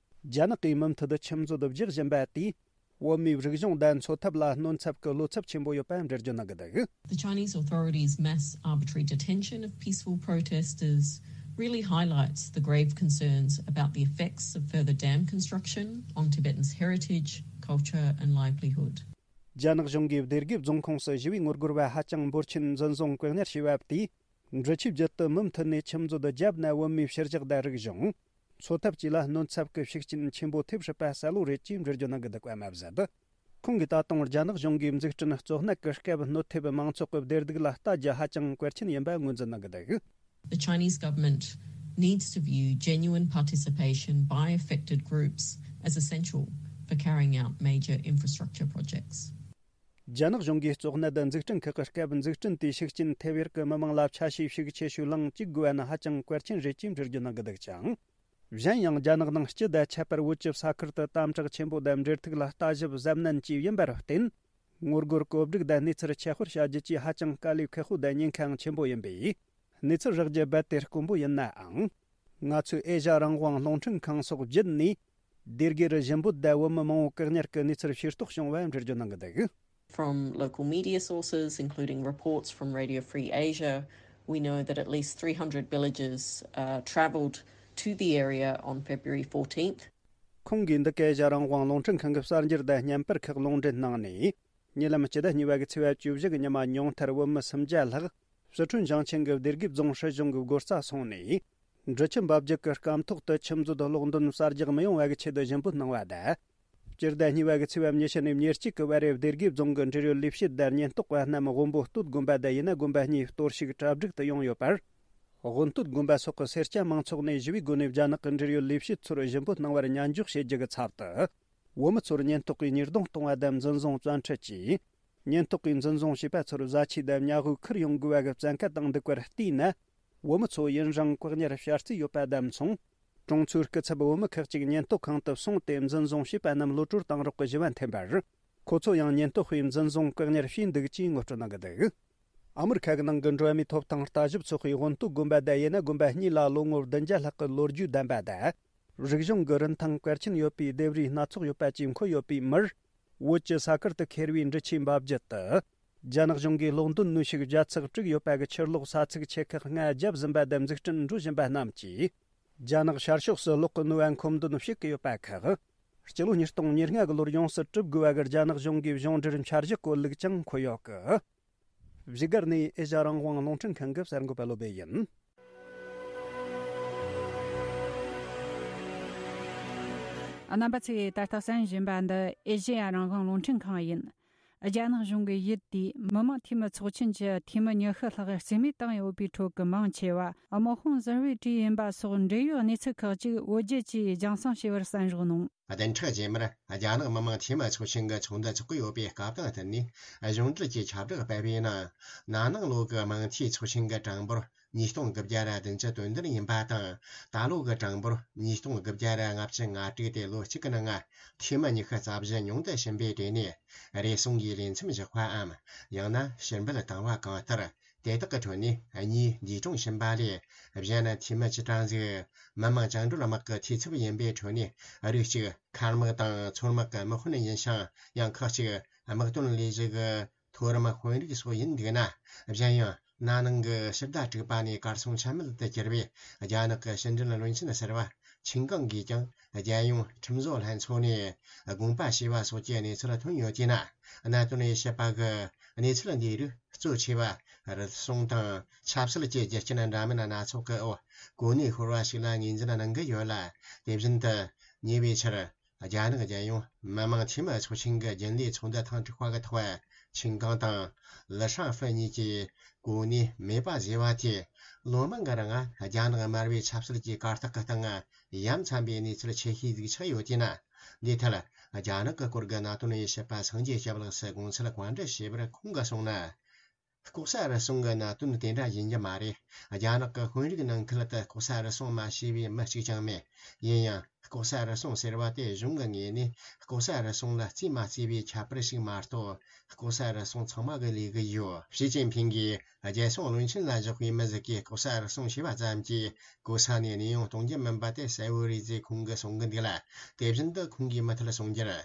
རྒྱ་ནག་གིས་མུ་མཐུད་དུ་ཆུ་མཛོད་དུ་རྒྱག་བཞིན་པ་དེས། བོད་མིའི་རིག་གཞུང་དང་འཚོ་ཐབས་ལ་གནོད་འཚེ་གི་བློ་འཚབ་ཆེན་པོ་ཡོད་པ་འགྲེལ་བརྗོད་གནང་གི་འདུག། The Chinese authorities' mass arbitrary detention of peaceful protesters really highlights the grave concerns about the effects of further dam construction on Tibetans' heritage, culture, and livelihood. རྒྱ་ནག་གཞུང་གིས་སྡེ་དགེ་རྫོང་ཁོངས་སུ་ཞི་བའི་ངོ་རྒོལ་བ་ཧ་ཅང་འབོར་ཆེན་འཛིན་བཟུང་བཀག་ཉར་བྱས་པ་དེས། འབྲི་ཆུའི་རྒྱུད་དུ་མུ་མཐུད་ནས་ཆུ་མཛོད་བརྒྱབ་ན་བོད་མིའི་ཕྱི་རྒྱལ་དང་རིག་གཞུང་། འཚོ་ཐབས་བཅས་ལ་གནོད་འཚེ་གི་ཤུགས་རྐྱེན་ཆེན་པོ་ཐེབས་སྲིད་པ་གསལ་བོ་རེད་ཅེས་འགྲེལ་བརྗོད་གནང་གི་འདུག་པ་མ་ཟད། ཁོང་གིས་ད་དུང་རྒྱ་ནག་གཞུང་གིས་འཛུགས་སྐྲུན་གཙོ་གནད་ཀྱི་སྐབས་གནོད་ཐེབས་མང་ཚོགས་ཀྱི་བདེ་སྡུག་ལ་ལྟ་རྒྱུ་ཧ་ཅང་གལ་ཆེན་ཡིན་པ་ངོས་འཛིན་གནང་གི་འདུག། The Chinese government needs to view genuine participation by affected groups as essential for carrying out major infrastructure projects. རྒྱ་ནག་གཞུང་གིས་གཙོ་གནད་འཛུགས་སྐྲུན་ཁག་གི་སྐབས་འཛུགས་སྐྲུན་དེའི་ཤུགས་རྐྱེན་ཐེབས་ཡུལ་གྱི་མི་མང་ལ་ཆ་ཤས་ཤིག་ཆེ་ཤོས་ལངས་བཅུག་དགོས་པ་ནི་ཧ་ཅང་གལ་ཆེན་རེད་ཅེས་འགྲེལ་བརྗོད་གནང་གི་འདུག་ཅིང་། གཞན་ཡང་རྒྱ་ནག་ནང་སྤྱི་དང་ཁྱད་པར་བོད་ཀྱི་ས་ཁུལ་དུ་དམ་དྲག་ཆེན་པོ་དང་འབྲེལ་ཐུག་ལ་ལྟ་ཞིབ་གཟབ་ནན་བཅས་ཡིན་པར་བརྟེན། ངོ་རྒོལ་གོ་སྒྲིག་དང་གནས་ཚུལ་ཁྱབ་སྤེལ་བྱ་རྒྱུ་བཅས་ཧ་ཅང་དཀའ་ལས་ཁག་པོ་དང་ཉེན་ཁའང་ཆེན་པོ་ཡིན་པས། གནས་ཚུལ་རགས་རྒྱུ་རྦད་དེ་དཀོན་པོ་ཡིན་ནའང་། ང་ཚོས་ཨེ་ཤ་རང་དབང་རླུང་འཕྲིན་ཁང་སོགས་བརྒྱུད་ནས། སྡེ་དགེ་རུ་ཞི་འབོད་དང་བོད་མི་མང་པོ་བཀག་ཉར་གྱི་གནས་ཚུལ་ཤེས་རྟོགས་བྱུང་བ་འགྲེལ་བརྗོད་གནང་གི་འདུག From local media sources, including reports from Radio Free Asia, we know that at least three hundred villagers uh, travelled to the area on February fourteenth. ཁོང་གིས་འདི་ག་ཨེ་ཤ་རང་དབང་རླུང་འཕྲིན་ཁང་གི་གསར་འགྱུར་དང་བརྙན་པར་ཁག་ལུང་འདྲེན་གནང་ནས། ཉེ་ལམ་སྤྱི་ཟླ་གཉིས་པ་གི་ཚེས་པ་བཅུ་བཞི་གི་ཉི་མ་ཉུང་མཐར་བོད་མི་སུམ་བརྒྱ་ལྷག་སི་ཁྲོན་ཞིང་ཆེན་གྱི་སྡེ་དགེ་རྫོང་སྲིད་གཞུང་གི་སྒོ་རྩར་སོང་ནས། འབྲི་ཆུ་འབབ་རྒྱུད་ཀྱི་སྐམ་ཐོག་ཏུ་ཆུ་མཛོད་གློག་འདོན་གསར་རྒྱག་མི་ཡོང་བ་གི་ཆེད་དུ་ཞུ་འབོད་གནང་བ་དང་། སྤྱི་ཟླ་གཉིས་པ་གི་ཚེས་པ་ཉི་ཤུ་ནས་ཉེར་གཅིག་གི་བར་རེ་སྡེ་དགེ་རྫོང་གི་འབྲེལ་ཡོད་ལས་བྱེད་དང་ཉེན་རྟོག་པ་རྣམས་དབོན་པོ་སྟོད་དགོན་པ་དང་ཡུ་ན་དགོན་པ་གཉིས་གཏོར་བཤིག་གྲ་སྒྲིག་ཏུ་ཡོང་ཡོད་པར། དབོན་སྟོད་དགོན་པ་སོགས་ཀྱི་སེར་སྐྱ་མང་ཚོགས་ནས་ཞི་བའི་སྒོ་ནས་རྒྱ་ནག་གི་འབྲེལ་ཡོད་ལས་བྱེད་ཚོར་ཞུ་འབོད་གནང་བར་ཉན་འཇོག་བྱེད་རྒྱུ་གི་ཚབ་ཏུ། བོད་མི་ཚོར་ཉེན་རྟོག་པས་གཉེར་སྡོང་གཏོང་བ་དང་འཛིན་བཟུང་བཙན་ཁྲིད་བྱས། ཉེན་རྟོག་པས་འཛིན་བཟུང་བྱས་པ་ཚོར་བཟའ་ཆས་དང་ཉལ་ཧོལ་ཁུར་ཡོང་དགོས་པ་གི་བཙན་བཀའ་བཏང་འདུག་པར་བལྟས་ན། བོད་མི་ཚོ་ཡུན་རིང་བཀག་ཉར་བྱ་རྩིས་ཡོད་པ་དང་མཚུངས། གྲོང་ཚོའི་སྐུ་ཚབ་བོད་མི་ཁག་ཅིག་ཉེན་རྟོག་ཁང་དུ་སོང་སྟེ་འཛིན་བཟུང་བྱས་པ་རྣམས་གློད་གྲོལ་བཏང་རོགས་ཀྱི་ཞུ་བ་འཐེན་པར། ཁོ་ཚོ་ཡང་ཉེན་རྟོག་པས་འཛིན་བཟུང་བཀག་ཉར་བྱས་འདུག་ཅེས་ངོ་སྤྲོད་གནང་གི་འདུག་ཨ་མི་རི་ཁ་གི་ནང་གི་འགྲོ་བ་མིའི་ཐོབ་ཐང་ལྟ་ཞིབ་ཚོགས་པས་དབོན་སྟོད་དགོན་པ་དང་ཡུ་ན་དགོན་པ་གཉིས་ལ་ལོ་ངོ་བདུན་བརྒྱ་ལྷག་གི་ལོ་རྒྱུས་ལྡན་པ་དང་། རིག་གཞུང་གི་རིན་ཐང་གལ་ཆེན་ཡོད་པའི་ལྡེབས་རིས་སྣ་ཚོགས་ཡོད་པ་བཅས་འཁོད་ཡོད་པའི་མིར། བོད་ཀྱི་ས་ཁུལ་དུ་ཁེར་བའི་འབྲི་ཆུའི་འབབ་རྒྱུད་དུ། རྒྱ་ནག་གཞུང་གིས་གློག་འདོན་ནུས་ཤུགས་བརྒྱ་ཚག་དྲུག་ཡོད་པ་གི་ཕྱིར་སློག་ས་ཚིགས་ཆེ་ཁག་ལྔ་བརྒྱབ་ཟིན་པ་དང་འཛུགས་སྐྲུན་འགྲོ་བཞིན་པ་རྣམས་ཀྱིས། རྒྱ་ནག་ཤར་ཕྱོགས་སུ་གློག་གི་ནུས་པ་མཁོ་འདོན་བྱེད་ཀྱི་ཡོད་པ་ཁག་སྤྱི་ལོ་ཉིས་སྟོང་ཉེར་ལྔ་གི་ལོར་ཡོངས་སུ་གྲུབ་དགོས་པ་གི་རྒྱ་ནག་གཞུང་གི་གཞུང་འབྲེལ་འཆར་གཞི་བཀོད་ལུགས་ཀྱང་འཁོད་ཡོད་གི་བཞུགས་སྒར་ནས་ཨེ་ཤ་རང་དབང་རླུང་འཕྲིན་ཁང་གི་གསར་འགོད་པ་བློ་བྷེ་ཡིན། རྣམ་པ་ཚོས་ད་ལྟ་གསན་བཞིན་པ་འདི་ཨེ་ཤེ་ཡ་རང་དབང་རླུང་འཕྲིན་ཁང་ཡིན། རྒྱ་ནག་གཞུང་གིས་ཡུལ་དེའི་མི་དམངས་འཐུས་མི་ཚོགས་ཆེན་གྱི་འཐུས་མི་ཉི་ཤུ་ལྷག་རྩིས་མེད་བཏང་ཡོད་པའི་ཁྲོད་ཀྱི་མང་ཆེ་བ་དམག་དཔུང་གསར་པའི་གྲས་ཡིན་པ་སོགས་འབྲེལ་ཡོད་གནས་ཚུལ་ཁག་ཅིག་བོད་བརྒྱུད་ཀྱིས་རྒྱང་སྲིང་བྱས་པར་གསན་རོགས་གནང་། བདུན་ཕྲག་རྗེས་མར་རྒྱ་ནག་མི་དམངས་འཐུས་མི་ཚོགས་ཆེན་གྱི་ཚོགས་འདུ་འཚོགས་ཀྱི་ཡོད་པའི་སྐབས་དང་བསྟུན་ནས། གཞུང་འབྲེལ་གྱི་ཁྱབ་བསྒྲགས་སྤེལ་བའི་ནང་། ན་ནིང་ལོ་གི་དམངས་འཐུས་ཚོགས་ཆེན་གྱི་གྲངས་འབོར་ཉིས་སྟོང་དགུ་བརྒྱ་ར་བདུན་ཅུ་དོན་བདུན་ཡིན་པ་དང་། ད་ལོ་གི་གྲངས་འབོར་ཉིས་སྟོང་དགུ་བརྒྱ་ར་ལྔ་བཅུ་ང་དྲུག་སྟེ། ལོ་གཅིག་གི་ནང་འཐུས་མི་ཉི་ཤུ་རྩ་བཞི་ཉུང་དུ་ཕྱིན་པའི་གྲས་ནས་རེ་ཟུང་གིས་ལས་མཚམས་བཞག་པའམ། ཡང་ན་ཕྱིར་འབུད་བཏང་བ་གང་ལྟར། དེ་དག་གི་ཁྲོད་ནས་གཉིས་འདས་གྲོངས་ཕྱིན་པ་ལས། གཞན་འཐུས་མི་བཅུ་གྲངས་ཟིག་མི་དམངས་བཅིངས་འགྲོལ་དམག་གི་འཐུས་ཚབ་ཡིན་པའི་ཁྲོད་ནས། རིགས་གཅིག་མཁར་དམག་དང་མཚོ་དམག་གི་དམག་དཔོན་ཡིན་ཞིང་། ཡང་ཁག་ཅིག་དམག་དོན་ལས་གཞི་གི་མཐོ་རིམ་དཔོན་རིགས་སོགས་ཡིན་འདུག་ན། གཞན་ཡང་ན་ནིང་གི་ཕྱི་ཟླ་དྲུག་པ་ནས་གར་སོང་ཆ་མེད་དུ་གྱུར་བའི་རྒྱ་ནག་གི་ཕྱི་འབྲེལ་བློན་ཆེན་ཟུར་པ་ཆིན་ཀང་གིས་ཀྱང་། རྒྱལ་ཡོངས་ཁྲིམས་བཟོ་ལྷན་ཚོགས་ནས་དགོངས་པ་ཞུས་པ་སོགས་ཀྱི་གནས་ཚུལ་ཐོན་ཡོད་ཅེ་ན། གནད་དོན་དབྱེ་ཞིབ་པ་གིས་གནས་ཚུལ་འདིའི་རིགས་གཙོ་ཆེ་བ་རུལ་སུངས་དང་ཆབ་སྲིད་ཀྱི་རྒྱུ་རྐྱེན་འདྲ་མིན་སྣ་ཚོགས་ཀྱི་འོག་གོ་གནས་ཤོར་བ་ཞིག་ལ་ངོས་འཛིན་གནང་གི་ཡོད་ལ། དེ་བཞིན་དུ་ཉེ་བའི་ཆར། རྒྱ་ནག་རྒྱལ་ཡོངས་མི་དམངས་འཐུས་མི་ཚོགས་ཆེན་གྱི་རྒྱུན་ལས་ཚོགས་འདུ་ཐེངས་དྲུག་པ་གི་ཐོག་ཆིན་ཀང་དང་ལི་ཧྲང་ཧྥེ་གཉིས་ཀྱིས་གོ་གནས་མེད་པ་བཟོས་པ་དེས། ལོ་མང་གི་རིང་རྒྱ་ནག་དམར་པོའི་ཆབ་སྲིད་ཀྱི་གར་སྟེགས་ཀྱི་སྟེང་ཡ་མཚན་པའི་གནས་ཚུལ་ཆེ་ཤོས་ཟིག་ཆགས་ཡོད་ཅེ་ན། འདིའི་ཐད། རྒྱ་ནག་གི་སྐོར་གྱི་གནད་དོན་དབྱེ་ཞིབ་པ་སངས་རྒྱས་སྐྱབས་ལགས་སུ་དགོངས་ཚུལ་བཀའ་འདྲི་ཞུས་པར་ཁོང་གིས་གསུངས་ན། ལྐོག་ཟ་རུལ་སུངས་ཀྱི་གནད་དོན་དེ་འདྲ་ཡིན་རྒྱུ་མ་རེད། རྒྱ་ནག་གི་དཔོན་རིགས་ནང་ཁུལ་དུ་ལྐོག་ཟ་རུལ་སུངས་མ་བྱས་པའི་མི་གཅིག་ཀྱང་མེད། ཡིན་ཡང་། ལྐོག་ཟ་རུལ་སུངས་ཟེར་བ་དེ་གཞུང་གི་ངོས་ནས་ལྐོག་ཟ་རུལ་སུངས་ལ་རྩིས་མ་རྩིས་པའི་ཁྱད་པར་ཞིག་མ་གཏོགས། ལྐོག་ཟ་རུལ་སུངས་ཚང་མ་གིས་ལས་གི་ཡོད། ཞི་ཅིན་ཕིང་གིས་རྒྱལ་སྲུང་བློན་ཆེན་ལ་བཞག་པའི་མི་ཟིག་གིས་ལྐོག་ཟ་རུལ་སུངས་བྱས་པ་ཙམ་གྱིས་གོ་ས་ནས་གནས་དབྱུང་གཏོང་རྒྱུ་མིན་པ་དེ་གསལ་བོ་རེད་ཅེས་ཁོང་གིས་གསུང་གི་འདུག་ལ། དེ་བཞིན་དུ་ཁོང་གིས་མུ་མཐུད་གསུང་རྒྱུར།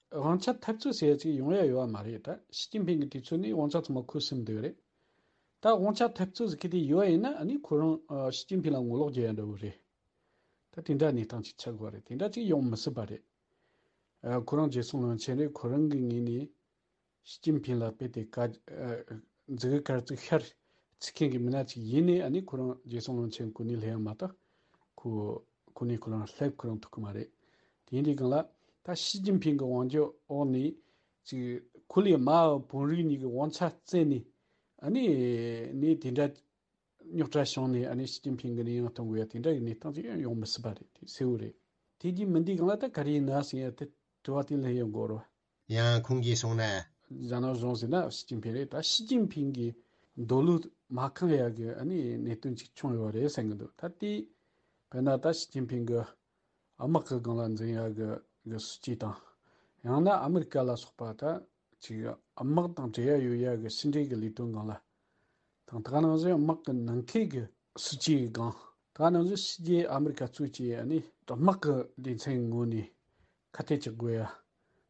དབང་ཆ་འཐབ་རྩོད་ཟེར་ཡ་ཅིག་ཡོང་ཡ་ཡོད་པ་མ་རེད། ད་ཞི་ཅིན་ཕིང་གི་དུས་ཚོད་ནས་དབང་ཆ་ཚང་མ་ཁོས་ཟིན་བསྡད་ཡོད་རེད། ད་དབང་ཆ་འཐབ་རྩོད་ཟེར་གི་དེ་ཡོད་ཡིན་ན། ཨ་ནི་ཁོ་རང་ཨ་ཞི་ཅིན་ཕིང་ལ་ངོ་ལོག་རྒྱག་ཡ་འདྲ་བོ་རེད། ད་དེ་འདྲ་གནས་སྟངས་ཅིག་ཆགས་དགོས་རེད། དེ་འདྲ་ཅིག་ཡོང་མི་སྲིད་པ་རེད། ཨ་ཁོ་རང་རྒྱལ་སྲུང་བློན་ཆེན་རེད། ཁོ་རང་གི་ངོས་ནས་ཞི་ཅིན་ཕིང་ལ་རྦད་དེ་བཀའ་ཨ་མཛུབ་གུ་དཀར་བཙུགས་ཤར་བཙུགས་མཁན་གྱི་མི་སྣ་ཅིག་ཡིན་ནའི། ཨ་ནི་ཁོ་རང་རྒྱལ་སྲུང་བློན་ཆེན་གོ་གནས་སླེབས་ཡ་མ་གཏོགས་ཁོ་གོ་གནས་ཁོ་རང་སླེབས་ཁོ་རང་ཐུབ་ཀྱི་མ་རེད། དེ་ཡིན་དུས་སྒང་ལ་ད་ཞི་ཅིན་ཕིང་གི་དབང་སྒྱུར་འོག་ནས་ཅིག་ཁོ་ལས་དམའ་བ་བོད་རིགས་གཉིས་ཀྱི་དབང་ཆ་བཙལ་ནས། ཨ་ནི་ནས་དེ་འདྲ་ རྙོག་དྲ་བྱུང་ནས་ཨ་ནི་ཞི་ཅིན་ཕིང་གི་ནས་ཡང་གཏོང་དགོས་ཡ་དེ་འདྲ་ཡི་གནས་སྟངས་ཅིག་ཡང་ཡོང་མི་སྲིད་པ་རེད། དེ་གསལ་བོ་རེད། དེ་རྗེས་མི་འདི་གང་ལ་ད་ག་རེ་ཡིན་ན་ཟེར་ཡ་དེ་དྲི་བ་དེ་ལ་ཡང་འགོར་བ། ཡང་ཁོང་གིས་གསུངས་ན། རྒྱ་ནག་གཞུང་ཟེར་ན་ཞི་ཅིན་ཕིང་རེད། ད་ཞི་ཅིན་ཕིང་གིས་འདོད་བློ་མ་ཁེངས་ཡ་གི་ཨ་ནི་གནད་དོན་ཅིག་བྱུང་ཡོད་རེད་བསམ་གི་འདུག་ད་དེ་དཔེར་ན་ད་ཞི་ཅིན་ཕིང་གི་དམག་གི་སྒང་ལ་འཛིན་ཡ་གི་གི་སྲིད་ཇུས་དང་། ཡང་ན་ཨ་མི་རི་ཀ་ལ་སོགས་པ་ད་ཅིག་དམག་དང་འབྲེལ་ཡ་ཡོད་ཡ་གི་ཕྱི་འབྲེལ་གི་ལས་དོན་སྒང་ལ་དང་། ད་ག་ནང་བཞིན་དམག་གི་ནང་འཁོད་གི་སྲིད་ཇུས་སྒང་། ད་ག་ནང་བཞིན་ཕྱི་རྒྱལ་ཨ་མི་རི་ཀ་གཙོས་ཀྱི་ཨ་ནི་དམག་གི་སྡེ་ཚན་ངོས་ནས་ཁ་གཏད་གཅོག་དགོས་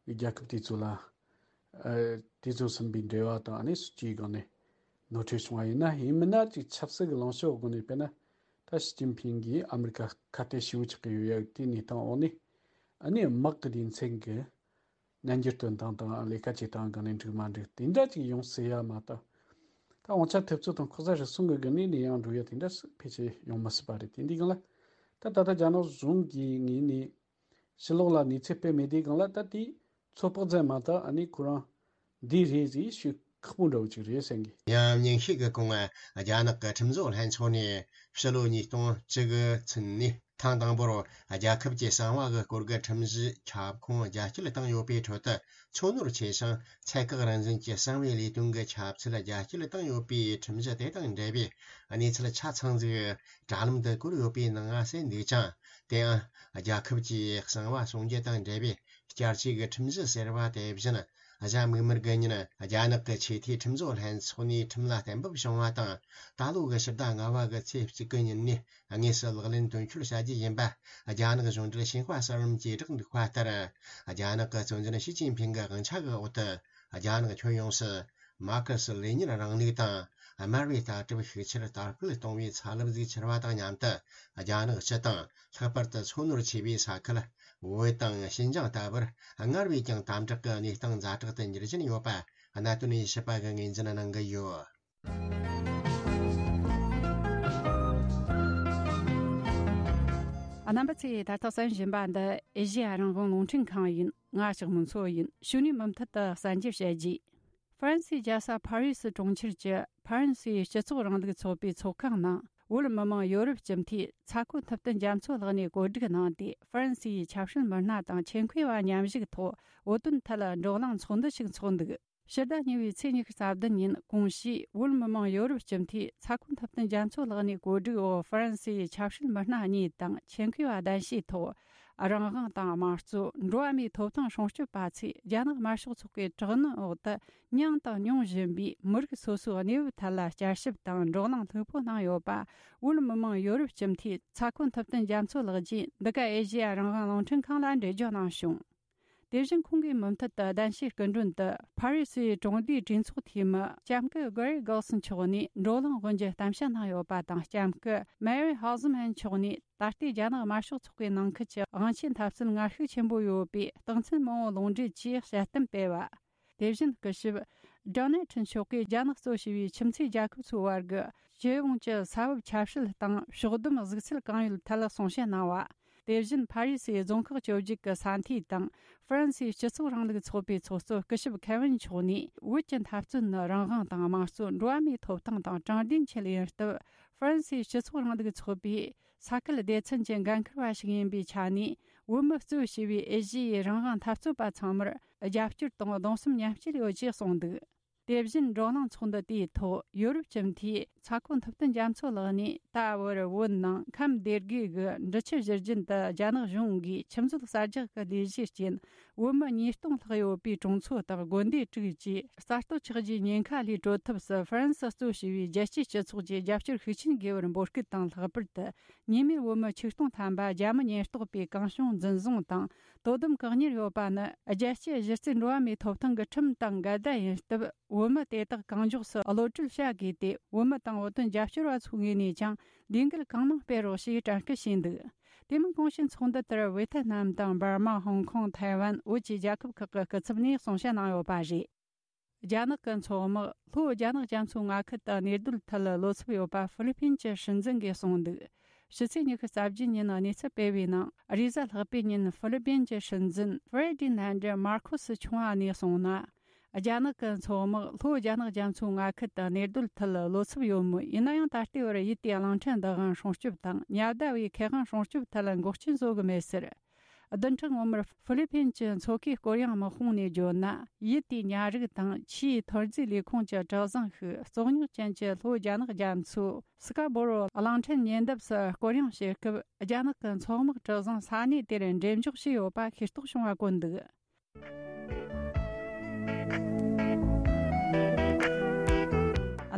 ཡ་གི་རྒྱལ་ཁབ་དེ་ཚོ་ལ། ཨ། དེ་ཚོ་ཟིན་པའི་འབྲེལ་བ་དང་ཨ་ནི་སྲིད་ཇུས་སྒང་ནས་ནོར་འཁྲུལ་བྱུང་བ་ཡིན་ན། ཡིན་མིན་ན་ཅིག་ཆབ་སྲིད་ཀྱི་ལངས་ཕྱོགས་སྒོ་ནས་དཔེར་ན་ད་ཞི་ཅིན་ཕིང་གིས་ཨ་མི་རི་ཀ་ཁ་གཏད་ཞེ་པོ་ཆགས་ཀྱི་ཡོད་ཡ་དེ་གནས་སྟངས་འོག་ནས་ཨ་ནི་དམག་གི་སྡེ་ཚན་གྱི་སྙན་འགྱུར་སྟོན་སྟངས་དང་ལས་ཀ་བྱེད་སྟངས་སྒང་ནས་འགྲིག་མ་འགྲིག་དེ་འདྲ་ཅིག་ཡོང་སྲིད་ཡ་མ་གཏོགས། ད་དབང་ཆ་ཐེབས་རྩོད་དང་ལྐོག་ཟ་རུལ་སུངས་ཀྱི་སྒང་ནས་ནས་ཡང་འགྲོ་ཡ་དེ་འདྲ་ཕལ་ཆེར་ཡོང་མི་སྲིད་པ་རེད། དེ་འདི་སྒང་ལ་ད་ད་ལྟ་རྒྱ་ནག་གཞུང་གི་ངོས་ནས། ཕྱི་ལོགས་ལ་གནས་ཚུལ་སྤེལ་མེད་དུས་སྒང་ལ་ད་དེ་ཚོད་དཔག་ཙམ་མ་གཏོགས་ཨ་ནི་ཁོ་རང་འདི་རེད་ཟེར་ཞུ་ཁག་པོ་འདྲ་བོ་ཅིག་རེད་བསམ་གི། ཡང་ཉིན་ཤས་ཀྱི་གོང་རྒྱ་ནག་གི་ཁྲིམས་བཟོ་ལྷན་ཚོགས་ནས་ཕྱི་ལོ་ཉིས་སྟོང་བཅུ་དགུ་ཚུན་ནས་ཐེངས་དང་པོར་རྒྱལ་ཁབ་ཀྱི་གསང་བ་གི་སྐོར་གྱི་ཁྲིམས་གཞིའི་ཁྱབ་ཁོངས་རྒྱ་སྐྱེད་བཏང་ཡོད་པའི་ཁྲོད་དུ། ཚོ་ནོར་ཆེ་ཞིང་ཚད་བཀག་རང་བཞིན་གྱི་གསང་བའི་ལས་དོན་གྱི་ཁྱབ་ཚད་རྒྱ་སྐྱེད་བཏང་ཡོད་པའི་ཁྲིམས་གཞི་དེ་དང་འབྲེལ་བའི་གནས་ཚུལ་ཆ་ཚང་ཟིག་དྲ་ལམ་དུ་བཀོད་ཡོད་པའི་ནང་ང་གསལ་འདུག་ཅིང་། དེའང་རྒྱལ་ཁབ་ཀྱི་གསང་བ་སྲུང་སྐྱོབ་དང་འབྲེལ་བའི་བསྐྱར་བཅོས་ཀྱི་ཁྲིམས་གཞི་ཟེར་བ་དེ་བཞིན་གཞན་མིག་དམར་གྱི་ཉིན་རྒྱ་ནག་གི་ཆེས་མཐོའི་ཁྲིམས་བཟོ་ལྷན་ཚོགས་ནས་ཁྲིམས་ལ་གཏན་འབེབས་བྱུང་བ་དང་། ད་ལོ་གི་ཕྱི་ཟླ་ལྔ་བ་གི་ཚེས་གཅིག་གི་ཉིན་ནས་དངོས་སུ་ལག་ལེན་དོན་འཁྱོལ་བྱ་རྒྱུ་ཡིན་པ་རྒྱ་ནག་གཞུང་འབྲེལ་ཤིན་ཧྭ་གསར་ལམ་གྱིས་བསྒྲགས་འདུག་པ་ལྟར། རྒྱ་ནག་གི་གཙོ་འཛིན་ཞི་ཅིན་ཕིང་གི་དབང་ཆ་གི་འོག་ཏུ་རྒྱ་ནག་ཁྱོན་ཡོངས་སུ་མར་ཁེ་སི་ལེ་ཉིན་རིང་ལུགས་དང་དམར་བའི་ལྟ་གྲུབ་ཤུགས་ཆེར་དར་སྤེལ་གཏོང་བའི་ཚ་རླབས་ཟིག་འཕྱུར་བ་དང་མཉམ་དུ། རྒྱ་ནག་སྤྱི་དང་ལྷག་པར་དུ་ཚོ་ནོར་ཆེ་བའི་ས་ཁུལ་བོད་དང་ཞིན་ཅང་ལྟ་བུར་སྔར་བས་ཀྱང་དམ་དྲག་གི་གནས་སྟངས་ཛ་དྲག་ཏུ་འགྱུར་བཞིན་ཡོད་པ་གནད་དོན་ཡིད་ཆེས་པ་གིས་ངོས་འཛིན་གནང་གི་ཡོད། རྣམ་པ་ཚོས་ད་ལྟ་གསན་བཞིན་པ་འདི་ཨེ་ཤེ་ཡ་རང་དབང་རླུང་འཕྲིན་ཁང་ཡིན། ང་ལྕགས་མོ་མཚོ་ཡིན། གཞུག་ནས་མུ་མཐུད་དུ་གསར་འགྱུར་བཤད་རྒྱུ། ཧྥ་རན་སིའི་རྒྱལ་ས་ཕ་རི་སི་གྲོང་ཁྱེར་གྱི་ཧྥ་རན་སིའི་སྤྱི་ཚོགས་རིང་ལུགས་ཚོགས་པའི་ཚོགས་ཁང་ནང་བོད་མི་མང་ཡོ་རོབ་སྤྱི་འཐུས་ཚ་ཁོ་ཐུབ་བསྟན་རྒྱ་མཚོ་ལགས་ནས་གོ་སྒྲིག་གནང་སྟེ། ཧྥ་རན་སིའི་ཆབ་སྲིད་མི་སྣ་དང་ཆེད་མཁས་པ་མཉམ་ཞུགས་ཐོག་བོད་དོན་ཐད་བགྲོ་གླེང་ཚོགས་འདུ་ཞིག་འཚོགས་འདུག་ཕྱི་ཟླ་གཉིས་པའི་ཚེས་ཉི་ཤུ་རྩ་བདུན་ཉིན་གོང་ཞུས་བོད་མི་མང་ཡོ་རོབ་སྤྱི་འཐུས་ཚ་ཁོ་ཐུབ་བསྟན་རྒྱ་མཚོ་ལགས་ནས་གོ་སྒྲིག་འོག་ཧྥ་རན་སིའི་ཆབ་སྲིད་མི་སྣ་གཉིས་དང་ཆེད་མཁས་པ་གདན་ཞུས་ཐོག་རང་དབང་དང་དམངས་གཙོ། འགྲོ་བ་མིའི་ཐོབ་ཐང་སྲུང་སྐྱོབ་པ་ཚོས་རྒྱ་ནག་དམར་ཤོག་ཚོགས་པའི་དྲག་གནོན་འོག་ཏུ་མྱངས་དང་མྱོང་བཞིན་པའི་མི་རིགས་སོ་སོའི་གནས་བབ་ཐད་ལ་བསྐྱར་ཞིབ་དང་བགྲོ་གླེང་ལྷུག་པོ་གནང་ཡོད་པ། བོད་མི་མང་ཡོ་རོབ་སྤྱི་འཐུས་ཚ་ཁོ་ཐུབ་བསྟན་རྒྱ་མཚོ་ལགས་ཀྱིས་འདི་ག་ཨེ་ཤེ་ཡ་རང་དབང་རླུང་འཕྲིན་ཁང་ལ་འགྲེལ་བརྗོད་གནང་བྱུང་། དེ་བཞིན་ཁོང་གིས་མུ་མཐུད་དུ་གདན་ཞུའི་སྐུ་མགྲོན་དུ་ཕ་རི་སིའི་གྲོང་སྡེའི་གྲོས་ཚོགས་འཐུས་མི་ལྕམ་སྐུ་གྷ་རི་གྷོལ་སན་མཆོག་ནས་བགྲོ་གླེང་དབུ་འབྱེད་གཏམ་བཤད་གནང་ཡོད་པ་དང་། ལྕམ་སྐུ་མེ་རི་ཧོ་ཟི་མན་མཆོག་ནས་ད་ལྟའི་རྒྱ་ནག་དམར་ཤོག་ཚོགས་པའི་ནང་ཁུལ་གྱི་དབང་ཆའི་འཐབ་རྩོད་ངར་ཤུགས་ཆེན་པོ་ཡོད་པའི་རྟགས་མཚན་མང་པོ་ལུང་འདྲེན་གྱིས་དཔྱད་གཏམ་སྤེལ་བ། དེ་བཞིན་སྐུ་ཞབས་ཌོ་ནལ་ཁྲིན་མཆོག་གིས་རྒྱ་ནག་གཙོ་བྱས་པའི་ཁྱིམ་མཚེས་རྒྱལ་ཁབ་ཚོའི་བར་གྱི་སྤྱི་ཡོངས་ཀྱི་ས་བབ་ཆབ་སྲིད་དང་ཕྱོགས་བསྡོམས་གཟིགས་ཚུལ་གང་ཡོད་ཐད་གསུང་བཤད་གནང་བ། དེ་བཞིན་ཕ་རི་སིའི་རྫོང་ཁག་བཅོ་བརྒྱད་ཀྱི་ས་འཐུས་དང་ཧྥ་རན་སིའི་སྤྱི་ཚོགས་རིང་ལུགས་ཚོགས་པའི་ཚོགས་གཙོ་སྐུ་ཞབས་ཁེ་ཝིན་མཆོག་ནས། བོད་ཀྱི་འཐབ་རྩོད་ནི་རང་དབང་དང་དམངས་གཙོ། འགྲོ་བ་མིའི་ཐོབ་ཐང་དང་དྲང་བདེན་ཆེད་ཡིན་སྟབས། ཧྥ་རན་སིའི་སྤྱི་ཚོགས་རིང་ལུགས་ཚོགས་པའི་ས་ཁུལ་སྡེ་ཚན་གྱི་འགན་འཁུར་བ་ཞིག་ཡིན་པའི་ཆ་ནས། བོད་མི་གཙོས་བྱས་པའི་ཨེ་ཤི་ཡའི་རང་དབང་འཐབ་རྩོད་པ་ཚང་མར་རྒྱབ་སྐྱོར་དང་གདུང་སེམས་མཉམ་སྐྱེད་ཡོད་ཅེས་གསུངས་འདུག་དེ་བཞིན་བགྲོ་གླེང་ཚོགས་འདུ་དེའི་ཐོག་ཡོ་རོབ་སྤྱི་འཐུས་ཚ་ཁོ་ཐུབ་བསྟན་རྒྱ་མཚོ་ལགས་ནས། ད་བར་བོད་ནང་ཁམས་སྡེ་དགུའི་འབྲི་ཆུ་བཞུར་རྒྱུན་དུ་རྒྱ་ནག་གཞུང་གིས་ཆུ་མཛོད་གསར་རྒྱག་གི་ལས་གཞིའི་རྐྱེན། བོད་མི་ཉིས་སྟོང་ལྷག་ཡོད་པའི་གྲོང་ཚོ་དང་དགོན་སྡེ་དྲུག་བཅས་གསར་གཏོད་ཆགས་རྒྱུའི་ཉེན་ཁ་ལས་གྲོལ་ཐབས་སུ་ཧྥ་རན་སི་གཙོས་བྱས་པའི་རྒྱལ་སྤྱིའི་སྤྱི་ཚོགས་ཀྱིས་རྒྱབ་སྐྱོར་ཤུགས་ཆེན་དགོས་པར་འབོད་སྐུལ་དང་། ལྷག་པར་དུ་ཉེས་མེད་བོད་མི་ཆིག་སྟོང་ཐམ་པ་རྒྱ་མི་ཉེན་རྟོག་པས་གང་བྱུང་འཛིན་བཟུང་དང་དོ་དམ་བཀག་ཉར་ཡོད་པ་ནི། རྒྱལ་སྤྱིའི་གཞི་རྩའི་འགྲོ་བ་མིའི་ཐོབ་ཐང་གི་ཁྲིམས་དང་འགལ་ཟླ་ཡིན་སྟབས། བོད་མི་དེ་དག་གང་མགྱོགས་སུ་གློད་གྲོལ་བྱ་དགོས་ཏེ། བོད་མི་དང་བོད་དོན་རྒྱབ་སྐྱོར་བ་ཚོའི་ངོས་ནས་ཀྱང་ལས་འགུལ་གང་མང་སྤེལ་རོགས་ཞེས་དྲན་སྐུལ་བྱས་འདུག་དེ་མིན་གོང་ཞུས་ཚོགས་འདུ་དེར་ཝེ་ཐེ་ནམ་དང་འབར་མ། ཧོང་ཀོང་། ཐའེ་ཝན། བོད་ཀྱི་རྒྱལ་ཁབ་ཁག་གི་སྐུ་ཚབ་ནས་གསུང་བཤད་གནང་ཡོད་པ་རེད། རྒྱ་ནག་གི་མཚོ་དམག་ལྷོ་རྒྱ་ནག་རྒྱ་མཚོའི་མངའ་ཁུལ་དུ་གནས་སྡོད་ཐད་བློ་འཚབ་ཡོད་པ་ཧྥི་ལི་པིན་གྱི་སྲིད་འཛིན་གྱིས་གསུངས་འདུག་ཕྱི་ཚེས་ཉི་ཤུ་རྩ་བརྒྱད་ཉིན་གནས་ཚུལ་སྤེལ་བའི་ནང་། རེས་གཟའ་ལྷག་པའི་ཉིན་ཧྥི་ལི་པིན་གྱི་སྲིད་འཛིན་ཧྥེ་རི་ཌི་ནན་ཌི་མར་ཁོ་སི་ཆུང་བ་ནས་གསུངས་ན། རྒྱ་ནག་གི་མཚོ་དམག་ལྷོ་རྒྱ་ནག་རྒྱ་མཚོའི་མངའ་ཁུལ་དུ་གནས་སྡོད་ཐད་བློ་འཚབ་ཡོད་མོད། ཡིན་ན་ཡང་ད་ལྟའི་བར་ཡུལ་དེའི་གླིང་ཕྲན་བདག་དབང་སྲུང་སྐྱོབ་དང་ཉ་ཟླ་བའི་ཁེ་དབང་སྲུང་སྐྱོབ་ཐད་འགོག་རྐྱེན་བཟོ་གི་མེད་ཟེར། བདུན་ཕྲག་སྔོན་མར་ཧྥི་ལི་ཕིན་གྱི་མཚོ་ཁའི་སྐོར་གཡེང་དམག་དཔུང་ནས་བརྗོད་ན། ཡུལ་དེའི་ཉ་རིགས་དང་ཆུའི་ཐོན་རྫས་ལས་ཁུངས་ཀྱི་གྲུ་གཟིངས་ཤིག་བཙོག་ཉོག་ཅན་གྱི་ལྷོ་རྒྱ་ནག་རྒྱ་མཚོའི་སི་ཀ་སྦོ་རོ་གླིང་ཕྲན་ཉེ་འདབས་སུ་སྐོར་གཡེང་བྱེད་སྐབས། རྒྱ་ནག་གི་མཚོ་དམག་གྲུ་གཟིངས་ས་གནས་དེར་འགྲེམས་འཇོག་བྱས་ཡོད་པ་ཤེས་རྟོགས་བྱུང་བ་བཀོད་འདུག་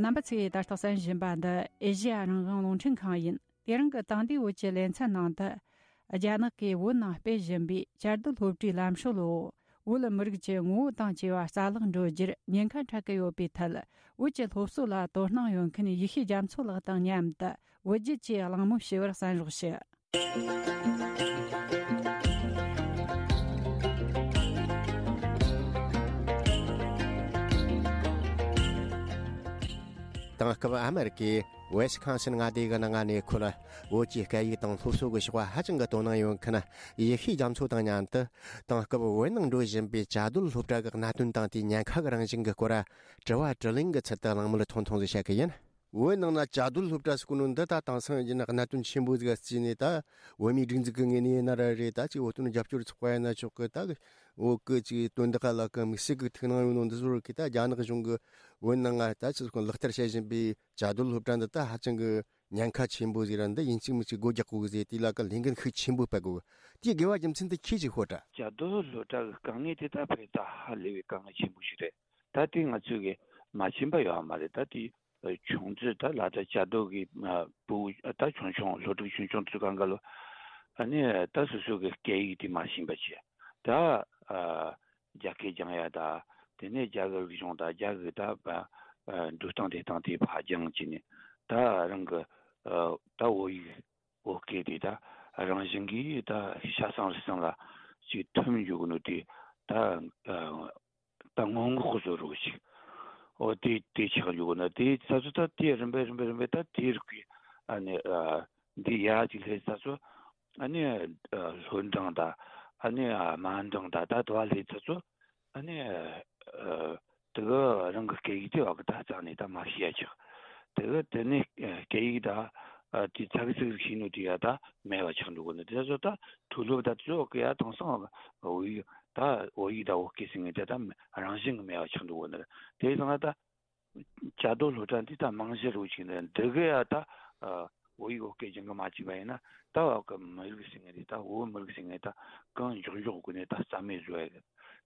རྣམ་པ་ཚོས་ད་ལྟ་གསན་བཞིན་པ་འདི་ཨེ་ཤེ་ཡ་རང་དབང་རླུང་འཕྲིན་ཁང་ཡིན། དེ་རིང་གི་དེང་དུས་བོད་ཀྱི་ལེ་ཚན་ནང་དུ། རྒྱ་ནག་གིས་བོད་ནང་སྤེལ་བཞིན་པའི་བཅའ་སྡོད་སློབ་གྲྭའི་ལམ་སྲོལ་འོག་བོད་མི་རིགས་ཀྱི་ངོ་བོ་དང་བཅས་པ་རྩ་བརླག་འགྲོ་རྒྱུར་ཉེན་ཁ་འཕྲད་ཀྱི་ཡོད་པའི་ཐད། བོད་ཀྱི་སློབ་གསོ་ལ་དོ་སྣང་ཡོད་མཁན་ཡེ་ཤེས་རྒྱ་མཚོ་ལགས་དང་མཉམ་དུ་བོད་བརྒྱུད་ཀྱི་གླེང་མོལ་ཞུ་བར་གསན་རོགས་ཞུ། དེང་སྐབས་ཨ་མེ་རི་ཀའི་ཝེ་སི་ཁོན་སིན་མངའ་སྡེ་གི་ནང་གནས་འཁོད་བོད་ཀྱི་སྐད་ཡིག་དང་སློབ་གསོ་གི་ཕྱོགས་ཧ་ཅང་གི་དོ་སྣང་ཡོད་མཁན་ཡེ་ཤེས་རྒྱ་མཚོ་དང་མཉམ་དུ། དེང་སྐབས་བོད་ནང་འགྲོ་བཞིན་པའི་བཅའ་སྡོད་སློབ་གྲྭ་གི་གནད་དོན་དང་དེའི་ཉེན་ཁ་གི་རང་བཞིན་གྱི་སྐོར། དྲི་བ་དྲིས་ལན་གྱི་ཚུལ་དུ་གླེང་མོལ་ཐུང་ཐུང་ཞིག་བྱ་གི་ཡིན། བོད་ནང་ན་བཅའ་སྡོད་སློབ་གྲྭ་ཟེར་གོ་ནོ་འདི་ད་དེང་སང་ཡིན་ན་གནད་དོན་ཆེན་པོ་ཟིག་བརྩིས་ནས། ད་བོད་མིའི་སྒྲིག་འཛུགས་ཀྱི་ངོས་ནས་ཡིན་ན་ར་རེད། ད་ཅིག་བོད་དོན་རྒྱབ་སྐྱོར་ཚོགས་པ་ཡིན་ན་ཆོག་གི། ད་བོད་ཀྱི་ཅིག་དོན་དག་ལ་གི་དམིགས་བསལ་གྱི་ཐུགས་སྣང་ཡོད་ནོ་འདི་ཚོར་གི། ད་རྒྱ་ནག་གཞུང་གི་བོད་ནང་ང་ད་ཅིག་ལག་བསྟར་བྱེད་བཞིན་པའི་བཅའ་སྡོད་སློབ་གྲྭ་འདི་ད་ཧ་ཅང་གི་ཉེན་ཁ་ཆེན་པོ་ཟིག་ར། འདི་ཡིན་གཅིག་མིན་གཅིག་སྒོ་རྒྱག་དགོས་གི་ཟེར། དེ་ལ་གི་ལས་འགན་ཤུགས་ཆེན་པོ་སྤེལ་དགོས་གི། དེའི་དགོས་པ་རྒྱུ་མཚན་དེ་ཁྱེད་ཀྱིས་ཤོད་དྲ། བཅའ་སྡོད་སློབ་གྲྭ་གི་དཀའ་ངལ་དེ་ད་ཕལ་ད་ཧ་ལས་པའི་དཀའ་ངལ་ཆེན་པོ་ཞིག་རེད། ད་དེ་ང་ཚོས་གི་མ་ཤེས་པ་ཡོད་མ་རེད། ད་དེ་ཆུང་དུས་ད་ལ་ད་བཅའ་སྡོད་གི་ཨ་བུ་ད་ཆུང་ཆུང་སློབ་ཕྲུག་ཆུང་ཆུང་དུས་སྒང་ག་ལོ། ཨ་ནི་ད་སོ་སོ་གི་སྐད་ཡིག་དེ་མ་ཤེས་པ་བྱས། ད་ཨ་རྒྱ་སྐད་སྦྱང་ཡ་ད། དེ་ནས་རྒྱ་གི་རིག་གཞུང་ད་རྒྱ་གི་ད་ཨ་འགྲོ་སྟངས་བསྡད་སྟངས་དེ་ཕར་སྦྱང་བྱས་ནས། ད་རང་གི་ཨ་ད་བོད་ཡིག་བོད་སྐད་དེ་ད་རང་བཞིན་གྱིས་ད་ཤ་ཚ་རུས་གཙང་ལ་ཅིག་ཐིམ་འཇུག་གི་ནོ་དེ། ད་ཨ་ད་སྔོན་འགོག་གི་བཟོ་འདྲ་ཅིག་འོ་དེ་དེ་ཆགས་འཇུག་གི་ན། དེ་ཚ་ཚོ་ད་དེ་རིམ་པས་རིམ་པས་རིམ་པས་ད་དེ་རིགས་ཀྱི་ཨ་ནི་ཨ་འདི་ཡར་ཅིག་སླེབས་ཚ་ཚོ། ཨ་ནི་ཨ་ལྷོ་འབྲིང་ད། ཨ་ནི་ཨ་དམར་འབྲིང་ད། ད་དུ་བ་སླེབས་ཚ་ཚོ། ཨ་ནི་ཨ་དེ་ག་རང་གི་སྐད་ཡིག་དེ་བ་གི་ད་རྩ་ནས་ད་མ་ཤེས་ཡ་ཆགས། དེ་ག་དེ་ནས་ཨ་སྐད་ཡིག་ད་ཨ་དེ་ཚ་གི་ཚིག་ཤེས་ནོ་དེ་ཡ་ད་མེད་པ་ཆགས་འགྲོ་གི་ནི། དེ་ཚོ་ད་མཐོ་སློབ་ད་ཚོ་གི་ཡ་དེང་སང་བོད་ཡིག་ད་བོད་ཡིག་ད་བོད་སྐད་ཟེར་མཁན་དེ་ད་རང་བཞིན་གི་མེད་པ་ཆགས་འགྲོ་གི་ནི་རེད། དེ་ཡིན་ཙང་ད། བཅའ་སྡོད་སློབ་གྲྭ་འདི་ད་རྨང་གཞི་རུ་བཅུག་ནས་འདི་ག་ཡ་ད་ཨ་བོད་ཡིག་བོད་སྐད་སྦྱང་གི་མ་བཅུག་པ་ཡིན་ན། ད་བ་གི་མི་རིགས་ཟེར་མཁན་འདི་ད་བོད་མི་རིགས་ཟེར་མཁན་ད་གང་མགྱོགས་མགྱོགས་སྒོ་ནས་ད་རྩ་མེད་བཟོ་ཡ་གི།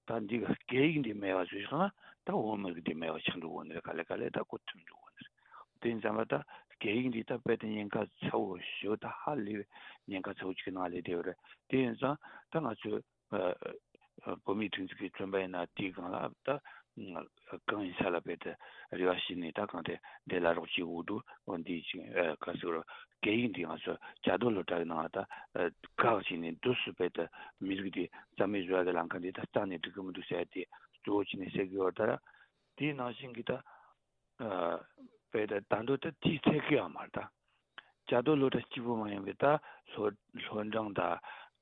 ད་འདི་གི་སྐད་ཡིག་འདི་མེད་པ་བཟོས་སོང་ན་ད་བོད་མི་རིགས་འདི་མེད་པ་ཆགས་འགྲོ་གོ་ནི་རེད། ག་ལེ་ག་ལེ་ད་གོ་ཐུབ་འགྲོ་གོ་ནི་རེད། དེ་ཡིན་ཙང་མ་ད་སྐད་ཡིག་འདི་ད་དཔེ་ད་ཉེན་ཁ་ཚ་བོ་ཞེ་པོ་ད་ཧ་ལས་པའི་ཉེན་ཁ་ཚ་བོ་ཅིག་གི་ནང་ལ་སླེབས་ཡོད་རེད། དེ་ཡིན་ཙང་ད་ང་ཚོས། ཨ་ཨ་བོད་མིའི་སྒྲིག་འཛུགས་ཀྱིས་བཙོན་པ་ཡིན་ན་དེའི་སྒང་ལ་ད་གང་ཡིན་ས་ལ་དཔེ་དེ་རེ་བ་བྱས་ནས་ད་གང་དེ་འདི་ལ་རོགས་བྱེད་འོ་འདུག་འོ་འདི་ཅིག་ཨ་ག་ཟེར་རོ། སྐད་ཡིག་འདི་ང་ཚོ་བཅའ་སྡོད་སློབ་གྲྭ་གི་ནང་ལ་ད་ཨ་བཀག་བྱས་ནས་འདུག་སུ་དཔེ་དེ་མི་རིགས་འདི་རྩ་མེད་བཟོ་ཡ་གི་ལམ་ཁ་འདི་ད་རྩ་ནས་འགྲིག་གི་མི་འདུག་ཟེར་ཡ་དེ་གཙོ་བོ་བྱས་ནས་ཟེར་གི་ཡོད་ད་ར། དེའི་ནང་བཞིན་གྱི་ད། ཨ་དཔེ་ད་ད་འདོད་ད་དེའི་ཚད་ཀྱི་ཡང་མར་ད། བཅའ་སྡོད་སློབ་གྲྭ་གཅིག་པུ་མ་ཡིན་པའི་ད་ལྷོ་ལྷོ་འབྲིང་ད་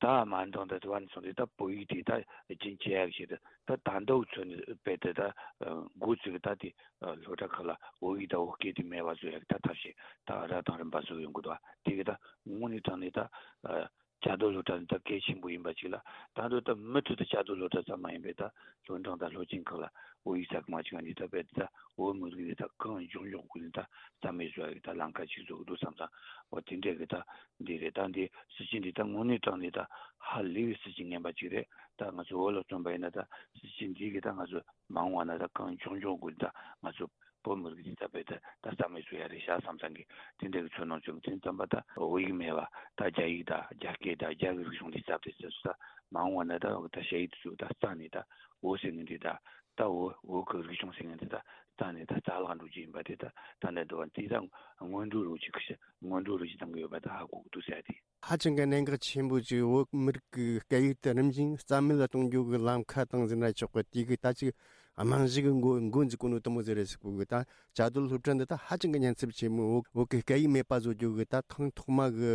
ད་དམར་འབྲིང་ད་དུ་བ་ནས་སོང་སྟེ་ད་བོད་ཡིག་དེ་ད་རྒྱུན་ཆད་ཡག་ཞིག་ད་ད་འདོད་ཚོད་ནི་དཔེ་དེ་ད་འགོ་བཙུགས་ད་དེ་སློབ་གྲྭ་ཁག་ལ་བོད་ཡིག་ད་བོད་སྐད་དེ་མེད་པ་བཟོ་ཡག་ད་ཐབས་ཤེས་ད་ར་དང་རིམ་པ་བཟོ་ཡོང་གི་འདུག་དེ་གི་ད་དངོས་གནས་དྲང་གནས་ད། བཅའ་སྡོད་སློབ་གྲྭ་ནི་ད་གལ་ཆེན་པོ་ཡིན་པ་ཅིག་ལ། ད་འདོད་ད་མུ་མཐུད་དུ་བཅའ་སྡོད་སློབ་གྲྭ་ཙམ་མ་ཡིན་པའི་ད་ལྷོ་འབྲིང་དང་ལྷོ་སྤྱིན་ཁག་ལ་བོད་ཡིག་ས་ཁུལ་མ་བྱུང་བ་ནི་ད་དཔེ་ད་བོད་མི་རིགས་ནི་ད་གང་མགྱོགས་མགྱོགས་སྒོ་ནས་ད་རྩ་མེད་བཟོ་ཡ་གི་ད་ལམ་ཁ་ཅིག་བཟོ་གི་འདུག་བསམ་ཙང་། འོ་དེ་འདྲ་གི་ད་འདི་རེད། ད་འདི་སྲིད་ཇུས་འདི་ད་དངོས་གནས་དྲང་གནས་ད་ཧ་ལས་པའི་སྲིད་ཇུས་ངན་པ་ཅིག་རེད། ད་ང་ཚོ་བོད་ལ་བརྩོན་པ་ཡིན་ན་ད་སྲིད་ཇུས་འདི་གི་ད་ང་ཚོ་མ་འོངས་པ་ན་ད་གང་མགྱོགས་མགྱོགས་སྒོ་ནས་ད་ང་ཚོ་བོད་མི་རིགས་འདི་ད་དཔེ་ད་ད་རྩ་མེད་བཟོ་ཡ་རེད་ཤག་བསམ་ཙང་གི་དེ་འདྲ་གི་ཚོར་སྣང་བྱུང་། དེ་ཙམ་པ་ད་བོད་ཡིག་མེད་པ་ད་རྒྱ་ཡིག་ད་རྒྱ་སྐད་ད་རྒྱ་གི་རིག་གཞུང་འདི་སླེབས་ཏེ་ཟེར་སོང་ད་མ་འོངས་པ་ན་ད་ད་ཞ་ཡིག་དེ་ཚོ་ད་རྩ་ནས་ད་བོད་ཟེར་མཁན་འདི་ད་ད་བོད་བོད་གི་རིག་གཞུང་ཟེར་མཁན་འདི་ད་རྩ་ནས་ད་རྩ་བརླག་འགྲོ་རྒྱུ་ཡིན་པ་དེ་ད་ད་ནས་འདུག་པ་འདི་ད་སྔོན་འགྲོ་རུ་ཅིག་སྔོན་འགྲོ་རུ་ཅིག་བཏང་གི་ཡོད་པ་ད་ཧ་གོ་གི་འདུག་ཟེར་ཡ་དེ། ཧ་ཅང་གི་གནད་འགག་ཆེན་པོ་ཅིག་བོད་མི་རིགས་ཀྱི་སྐད་ཡིག་དེ་རིམ་བཞིན་རྩ་མེད་ལ་གཏོང་རྒྱུ་གི་ལམ་ཁ་དང་ཟེར་ན་ཆོག་གི། དེ་གི་ད་ཅིག་རྨང་གཞི་གི་འགོ་འགོ་འཛུགས་གོ་ནོ་དེ་མོ་ཟིག་རེད་ཟེར་གོ་གི། ད་བཅའ་སྡོད་སློབ་གྲྭ་འདི་ད་ཧ་ཅང་གི་ཉེན་ཚབས་ཆེན་མོ། བོད་བོད་ཀྱི་སྐད་ཡིག་མེད་པ་བཟོ་རྒྱུ་གི་ད་ཐེངས་ཐོག་མ་གི་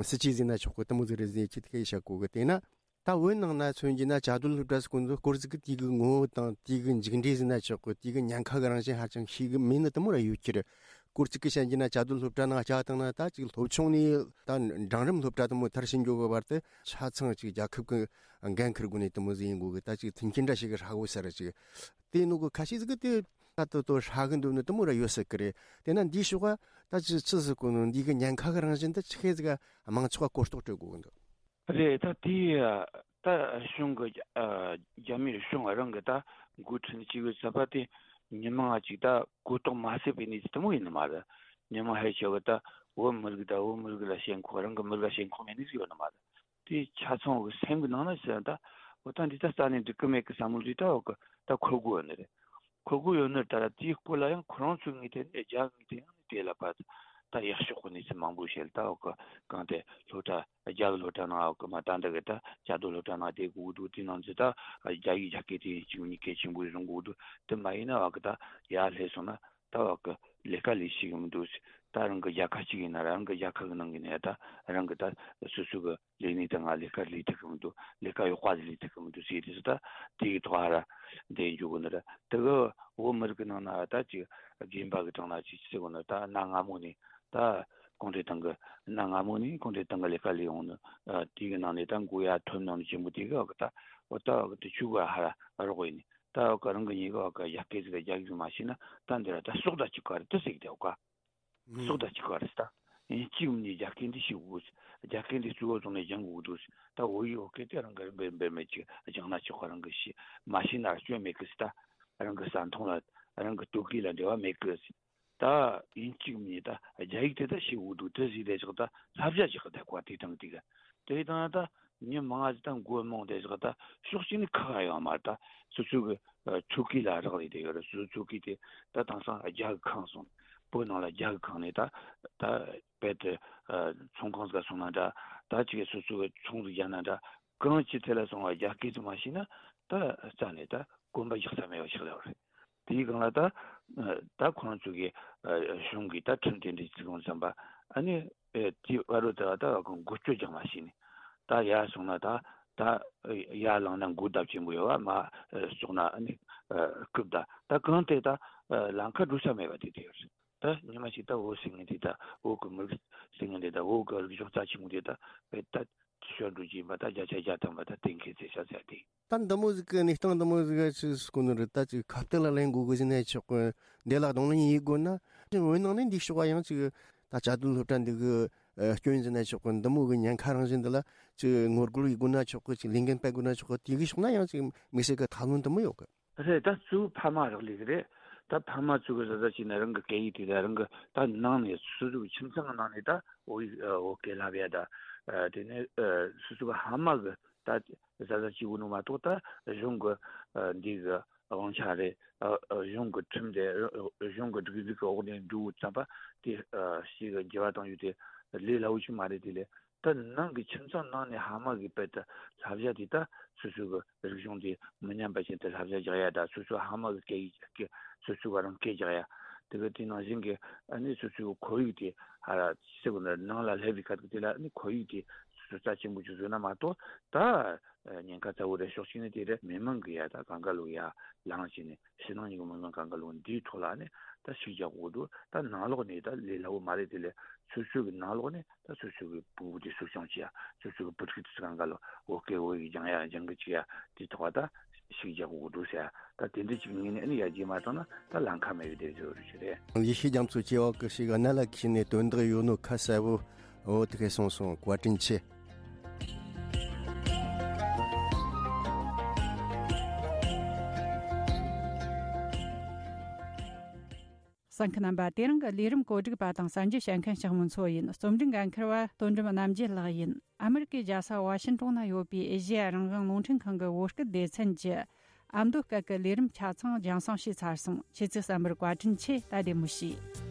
སྲིད་ཇུས་ཟེར་ན་ཆོག་གི་དེ་མོ་ཟིག་རེད་ཟེར་ཅིག་དེ་གི་བཤད་གོ་གི། དེས་ན། ད་བོད་ནང་ན་མཚོན་རྒྱུ་ན་བཅའ་སྡོད་སློབ་གྲྭ་ཟེར་གོ་ནོ་སྐོར་ཟིག་གི་དེ་གི་ངོ་བོ་དང་དེ་གི་མཇུག་འབྲས་ཟེར་ན་ཆོག་གི། དེ་གི་ཉེན་ཁ་གི་རང་བཞིན་ཧ་ཅང་ཤེས་གི་མེད་ནི་དེ་མོ་ར་ཡོད་ཀྱི་རེད། སྐོར་ཅིག་གི་བཤད་རྒྱུ་ན་བཅའ་སྡོད་སློབ་གྲྭ་ནང་བཅའ་བཏང་ན་ད་ཅིག་སློབ་ཆུང་ནས་ད་འབྲིང་རིམ་སློབ་གྲྭ་དེ་མོ་མཐར་ཕྱིན་འགྱོ་གི་བར་དུ་ཆ་ཚང་ཅིག་རྒྱལ་ཁབ་ཀྱི་འགན་འཁུར་དགོས་ནི་དེ་མོ་ཟིག་ཡིན་དགོས་གི། ད་ཅིག་མཐུན་རྐྱེན་འདྲ་ཞིག་གི་ཧྲ་གོ་ས་ར་ཅིག་དེ་ནོ་གི་ཁ་ཤས་ཟིག་གི་དེ་ད་དོ་དོ་ཧྲ་གི་འདུག་ནི་དེ་མོ་ར་ཡོད་སྲིད་གི་རེད། དེ་ན་འདིའི་ཕྱོགས་ད་ཅིག་ཆི་ཟིག་གོ་ནོ་འདི་གི་ཉེན་ཁ་གི་རང་བཞིན་དེ་ཆི་ཁེ་ཟིག་ག་མང་ཚོགས་ག་གོ་རྟོགས་སྤྲོད་དགོས་གི་འདུག་རེད། ད་དེའི་ད་གཞུང་གི་ཨ་རྒྱ་མིའི་གཞུང་རང་གི་ད་འགོ་ཁྲིད་ཅིག་ཡོད་ས་པ་དེ་མི་མང་ཅིག་ད་གོ་རྟོགས་མ་སད་པའི་གནས་ཚུལ་དེ་མོ་ཡིན་ནི་མ་རེད། མི་མང་ཧེ་ཤེས་གི་ད་བོད་མི་རིགས་ད་བོད་མི་རིགས་ལ་ཞེན་ཁོག་རང་གི་མི་རིགས་ལ་ཞེན་ཁོག་མེད་ནི་ཟིག་ཡོད་ནི་མ་རེད། དེ་ཆ་ཚང་གི་སེམས་གི་ནང་ན་ཟེར་ད་འོ་ད་འདི་ད་རྩ་ནས་འགྲིག་གི་མེད་གི་བསམ་བློ་དེ་ད་འོ་གི་ད་འཁོར་གི་ཡོད་ནི་རེད། ཁོ་དགོས་ཡོད་ནི་ད་ར་དེའི་སྐོར་ལ་ཡང་ཁོ་རང་ཚོའི་ངོས་ཐད་ནས་རྒྱ་ངོས་ཐད་ཡང་ནི་དེ་ལ་ཕར་ད་ཡག་ཤོས་ཀྱི་གནས་ཚུལ་མང་པོ་བཤད། ད་འོ་གི་གང་དེ་སློབ་གྲྭ་རྒྱ་གི་སློབ་གྲྭ་ནང་འོ་གི་མ་ད་འདི་གི་ད་བཅའ་སྡོད་སློབ་གྲྭ་ནང་བསྡད་དགོས་འདུག་དེ་ནང་ཚོ་ད་རྒྱ་ཡིག་རྒྱ་སྐད་དེ་གཅིག་གཉིས་གལ་ཆེན་པོ་བཟུང་དགོས་འདུག་དེ་མ་ཡིན་ན་འོ་གི་ད་ཡར་སླེབས་སོང་ན་ད་འོ་གི་ལས་ཀ་ལས་ཤེས་གི་མི་འདུག་ད་རང་གི་རྒྱལ་ཁབ་གཅིག་ཡིན་ན་རང་གི་རྒྱལ་ཁབ་གི་ནང་གི་ནས་ད་རང་གི་ད་སོ་སོ་གི་ལས་གནས་དང་ང་ལས་ཀ་ལས་ཐུབ་ཀྱི་མི་འདུག་ལས་ཀ་ཡག་པ་ཟིག་ལས་ཐུབ་ཀྱི་མི་འདུག་ཟེར་དུས་སུ་ད་དེ་གི་ཐོག་ཧ་ར་འདི་འཇུག་གི་ནི་རེད། དེ་གི་བོད་མི་རིགས་ཀྱི་ནང་ན་ད་ཅིག་དགོན་པ་གི་གྲས་ན་ཅིག་ཟེར་གོ་ནི་ད་གནའ་སྔ་མོ་ནས་ད་གུང་ཁྲན་ཏང་གི་གནའ་སྔ་མོ་ནས་གུང་ཁྲན་ཏང་གི་ལས་ཀ་ལས་ཡོང་ནི་དེ་གི་ནང་ནས་ད་མགོ་ཡར་ཐོན་ནོ་ནི་ཆེན་པོ་དེ་གི་འོག་གི་ད་འོ་ད་འོག་གི་དེ་ཆུ་གི་ཧ་ར་རོགས་ཡིན་ནི་ད་འོག་གི་རང་གི་ཉེ་གི་འོག་གི་ཡ་སྐད་ཟིག་གི་རྒྱ་གི་མ་ཤེས་ན་ད་འདི་ར་ད་སྲོག་ད་ཅིག་ག་རེ་ད་ཟེར་གི་དེ་འོག་ག་སྲོག་དང་གཅིག་པ་རེད་ད། ཡིན་གཅིག་མིན་ནི་རྒྱ་སྐད་འདི་ཤེས་དགོས། རྒྱ་སྐད་འདི་གཙོ་བོ་བཟུང་ནས་སྦྱང་དགོས་འདུག་ད་བོད་ཡིག་བོད་སྐད་དེ་རང་གི་འབེར་འབེར་མེད་ཅིག་སྦྱང་ན་ཆོག་ག་རང་གི་ཤེས་མ་ཤེས་ན་སྐྱོན་མེད་གི་ད། རང་གི་ཟ་འཐུང་ལ་རང་གི་ལྟོ་གོས་ལ་འབྲེལ་བ་མེད་གི་ད། ཡིན་གཅིག་མིན་ནི་ད་རྒྱ་ཡིག་དེ་ད་ཤེས་དགོས་འདུག་དེ་ཟིག་དེ་ཆོག་ད་བསླབ་བྱ་ཅིག་གི་ད་གོ་དེ་དང་དེ་གི་དེ་དང་ད། མྱི་མང་ང་ཅིག་ད་མགོ་རྨོངས་ཏེ་ཞོག་ད་ཕྱོགས་གཅིག་ནས་ཁག་ཡོད་མ་རེད་ད། སོ་སོ་གི་ཨ་ཆོ་ག་ལ་རག་ལས་ཏེ་ཡོད་རེད། སོ་སོ་ཆོ་ག་དེ་ད་དེང་སང་རྒྱ་གི་ཁེངས་སོང་། བོད་ནང་ལ་རྒྱ་གི་ཁེངས་ནས་ད་ད་དཔེ་དེ་ཨ་ཚོང་ཁང་ཟིག་ག་སོང་ན་འདྲ། ད་ཅིག་སོ་སོ་གི་ཚོང་ཟིག་རྒྱག་ན་འདྲ། གང་ཅི་ཐད་ལ་སོང་བ་རྒྱ་སྐད་དུ་མ་ཤེས་ན་ད་རྩ་ནས་ད་གོམ་པ་རྒྱག་ས་མེད་པ་ཞིག་ལ་རེད། དེའི་སྒང་ལ་ད་ད་ཁོ་རང་ཚོ་གི་གཞུང་གི་ད་ཁྲིམས་དེ་འདྲའི་བརྩི་གོང་བརྩམས་པ་ཨ་ནི་དེའི་བར་དུ་ད་ད་འགོ་བསྐྱོད་རྒྱག་མ་ཤེས་ནས་ད་ཡར་སོང་ན་ད་ད་ཡར་ལངས་ན་འགོ་ལྡབ་ཆེན་པོ་ཡོད་བ། མར་ཙོག་ན་ཨ་ནི་རྐུབ་ད་ད་གང་དེ་ད་ལམ་ཁ་འགྲོ་ས་མེད་པ་དེ་དེ་ཡོད་རེད། ད་ཉི་མ་ཞིག་ད་བོད་ཟེར་མཁན་དེ་ད་བོད་ཀྱི་མི་རིགས་ཟེར་མཁན་དེ་ད་བོད་ཀྱི་རིག་གཞུང་རྩ་ཆེན་པོ་དེ་ད་བེད་ད། ཤོར་འགྲོ་གི་ཡིན་པ་ད་བརྒྱ་ཆ་བརྒྱ་ཐམ་པ་ད་གཏན་འཁེལ་ཚེ་ཤ་ཚ་སྟེ། ད་འདི་མོ་ཟིག་གི་གནས་སྟངས་འདི་མོ་ཟིག་ག་ཆི་ཟིག་གོ་ནི་རེད། ད་ཅིག་ཁ་གཏད་ལ་ལེན་དགོས་གི་ཟེར་ན་ཆོག་གི། འདི་ལ་གདོང་ལེན་ཡེད་དགོས་ན་ཅིག་བོད་ནང་ནས་འདི་ཕྱོགས་པ་ཡང་ཅིག་ད་བཅའ་སྡོད་སློབ་གྲྭ་འདི་གི་སྐྱོན་ཟེར་ན་ཆོག་གི། འདི་མོ་གི་ཉེན་ཁ་རང་བཞིན་འདི་ལ་ཅིག་ངོ་རྒོལ་ཡེད་དགོས་ན་ཆོག་གི། ཅིག་ལས་འགན་སྤེལ་དགོས་ན་ཆོག་གི། དེ་གི་ཕྱོགས་ན་ཡང་ཅིག་དམིགས་བསལ་གི་ཐབས་ལམ་འདི་མོ་ཡོད་གི། རེད། ད་གཙོ་བོ་ཕ་མ་རག་ལས་ཀྱི་རེད། ད་ཕ་མ་ཚོ་གི་ཟ་ཟ་བྱས་ན་རང་གི་སྐད་ཡིག་དེ་ད་རང་གི་ད་ནང་ནས་སོ་སོ་གི་ཁྱིམ་ཚང་གི་ནང་ནས་ད་བོད་ཡིག་བོད་སྐད་བསླབ་ཡ་ད། དེ་ནས་སོ་སོ་གི་ཕ་མ་གི་ད་ཟ་ཟ་བྱེད་དགོས་ནོ་མ་གཏོགས་ད་གཞུང་གི་འདི་གི་དབང་ཆ་རེད། གཞུང་གི་ཁྲིམས་དེ་གཞུང་གི་སྒྲིག་འཛུགས་ཀྱི་འོག་ནས་འགྲོ་བཙམ་པ་དེ་ཞིག་གི་འགྱུར་བ་བཏང་ཡོད་དེ་ལས་སླ་བོ་ཞིག་མ་རེད། དེ་ལས། ད་ནང་གི་ཁྱིམ་ཚང་ནང་ནས་ཕ་མ་གིས་དཔེ་ད་བསླབ་བྱ་དེ་ད་སོ་སོ་གི་རིག་གཞུང་དེ་མི་ཉམས་པ་བཞིན་དུ་བསླབ་བྱ་རྒྱག་ཡ། ད་སོ་སོ་ཕ་མ་གི་སྐད་ཡིག་སྐད་སོ་སོ་ག་རང་སྐད་རྒྱག་ཡ། དེ་གི་དེ་ནང་བཞིན་གི་ཨ་ནི་སོ་སོ་གི་ཁོར་ཡུག་དེ་ཧ་ར་ཟེར་གོ་ནི་ནང་ལ་སླེབས་པའི་ཁ་ཐུག་དེ་ལ་ཨ་ནི་ཁོར་ཡུག་དེ་སོ་སོ་རྩ་ཆེན་པོ་ཅིག་བཟོས་ན་མ་གཏོགས་ད་ཉེན་ཁ་ཚ་བོ་རེད། ཕྱོགས་གཅིག་ནས་དེ་རེད། མི་མང་གི་ཡ་ད་གང་ག་ལོ་ཡ་ལངས་བྱས་ནས་ཕྱི་ནང་གཉིས་ཀྱི་མི་མང་གང་ག་ལོ་འདིའི་ཐོག་ལ་ཨ་ནི་ད་ཤུགས་རྒྱག་དགོས་འདུག་ད་ནང་ལོགས་ནས་ད་ལས་སླ་བོ་མ་རེད། དེ་ལས་སོ་སོ་གི་ནང་ལོགས་ནས། ད་སོ་སོ་གི་ཕྲུ་གུ་དེ་གསོ་སྐྱོང་བྱེད་ཡ། སོ་སོ་གི་བུ་ཕྲུག་དེ་ཚོ་གང་ག་ལ་བོད་སྐད་བོད་ཡིག་སྦྱང་ཡ་སྦྱང་གི་བཅུག་ཡ་དེ་ཐོག་ད་ཤུགས་རྒྱག་དགོས་འདུག་ཟེར་ཡ། ད་དེ་འདྲ་ཅིག་ངོས་ནས་ཨ་ནི་ཡར་རྒྱས་མ་བཏང་ན་ད་ལམ་ཁ་མེད་པའི་དེ་བཟོ་རུ་ཞིག་རེད། ཡེ་ཤེས་རྒྱ་མཚོ་སྐྱེ་བ་ཀུན་ཤེས་ཀྱི་གནད་ལ་འཁེལ་ནས་དོན་དག་ཡོད་ནོ་ཁ་གསལ་བོ་འོ་དེ་གས་སོང་སོང་། བཀའ་དྲིན་ཆེ། གསན་མཁན་རྣམ་པ། དེ་རིང་གི་ལས་རིམ་གོ་སྒྲིག་པ་དང་གསར་འགྱུར་བཤད་མཁན་ཞག་མོ་མཚོ་ཡིན། རྩོམ་སྒྲིག་འགན་འཁུར་བ་དོན་གྲུབ་རྣམ་རྒྱལ་ལགས་ཡིན། ཨ་མི་རི་ཀའི་རྒྱལ་ས་ཝ་ཤིན་ཏོན་ན་ཡོད་པའི་ཨེ་ཤེ་ཡ་རང་དབང་རླུང་འཕྲིན་ཁང་གི་བོད་སྐད་སྡེ་ཚན་གྱི་ཨ་མདོ་སྐད་ཀྱི་ལས་རིམ་ཆ་ཚང་རྒྱང་སྲིང་བྱས་ཚར་སོང་། ཁྱེད་ཚོས་གསན་པར་བཀའ་དྲིན་ཆེ། ད་བདེ་མོ་བྱོས།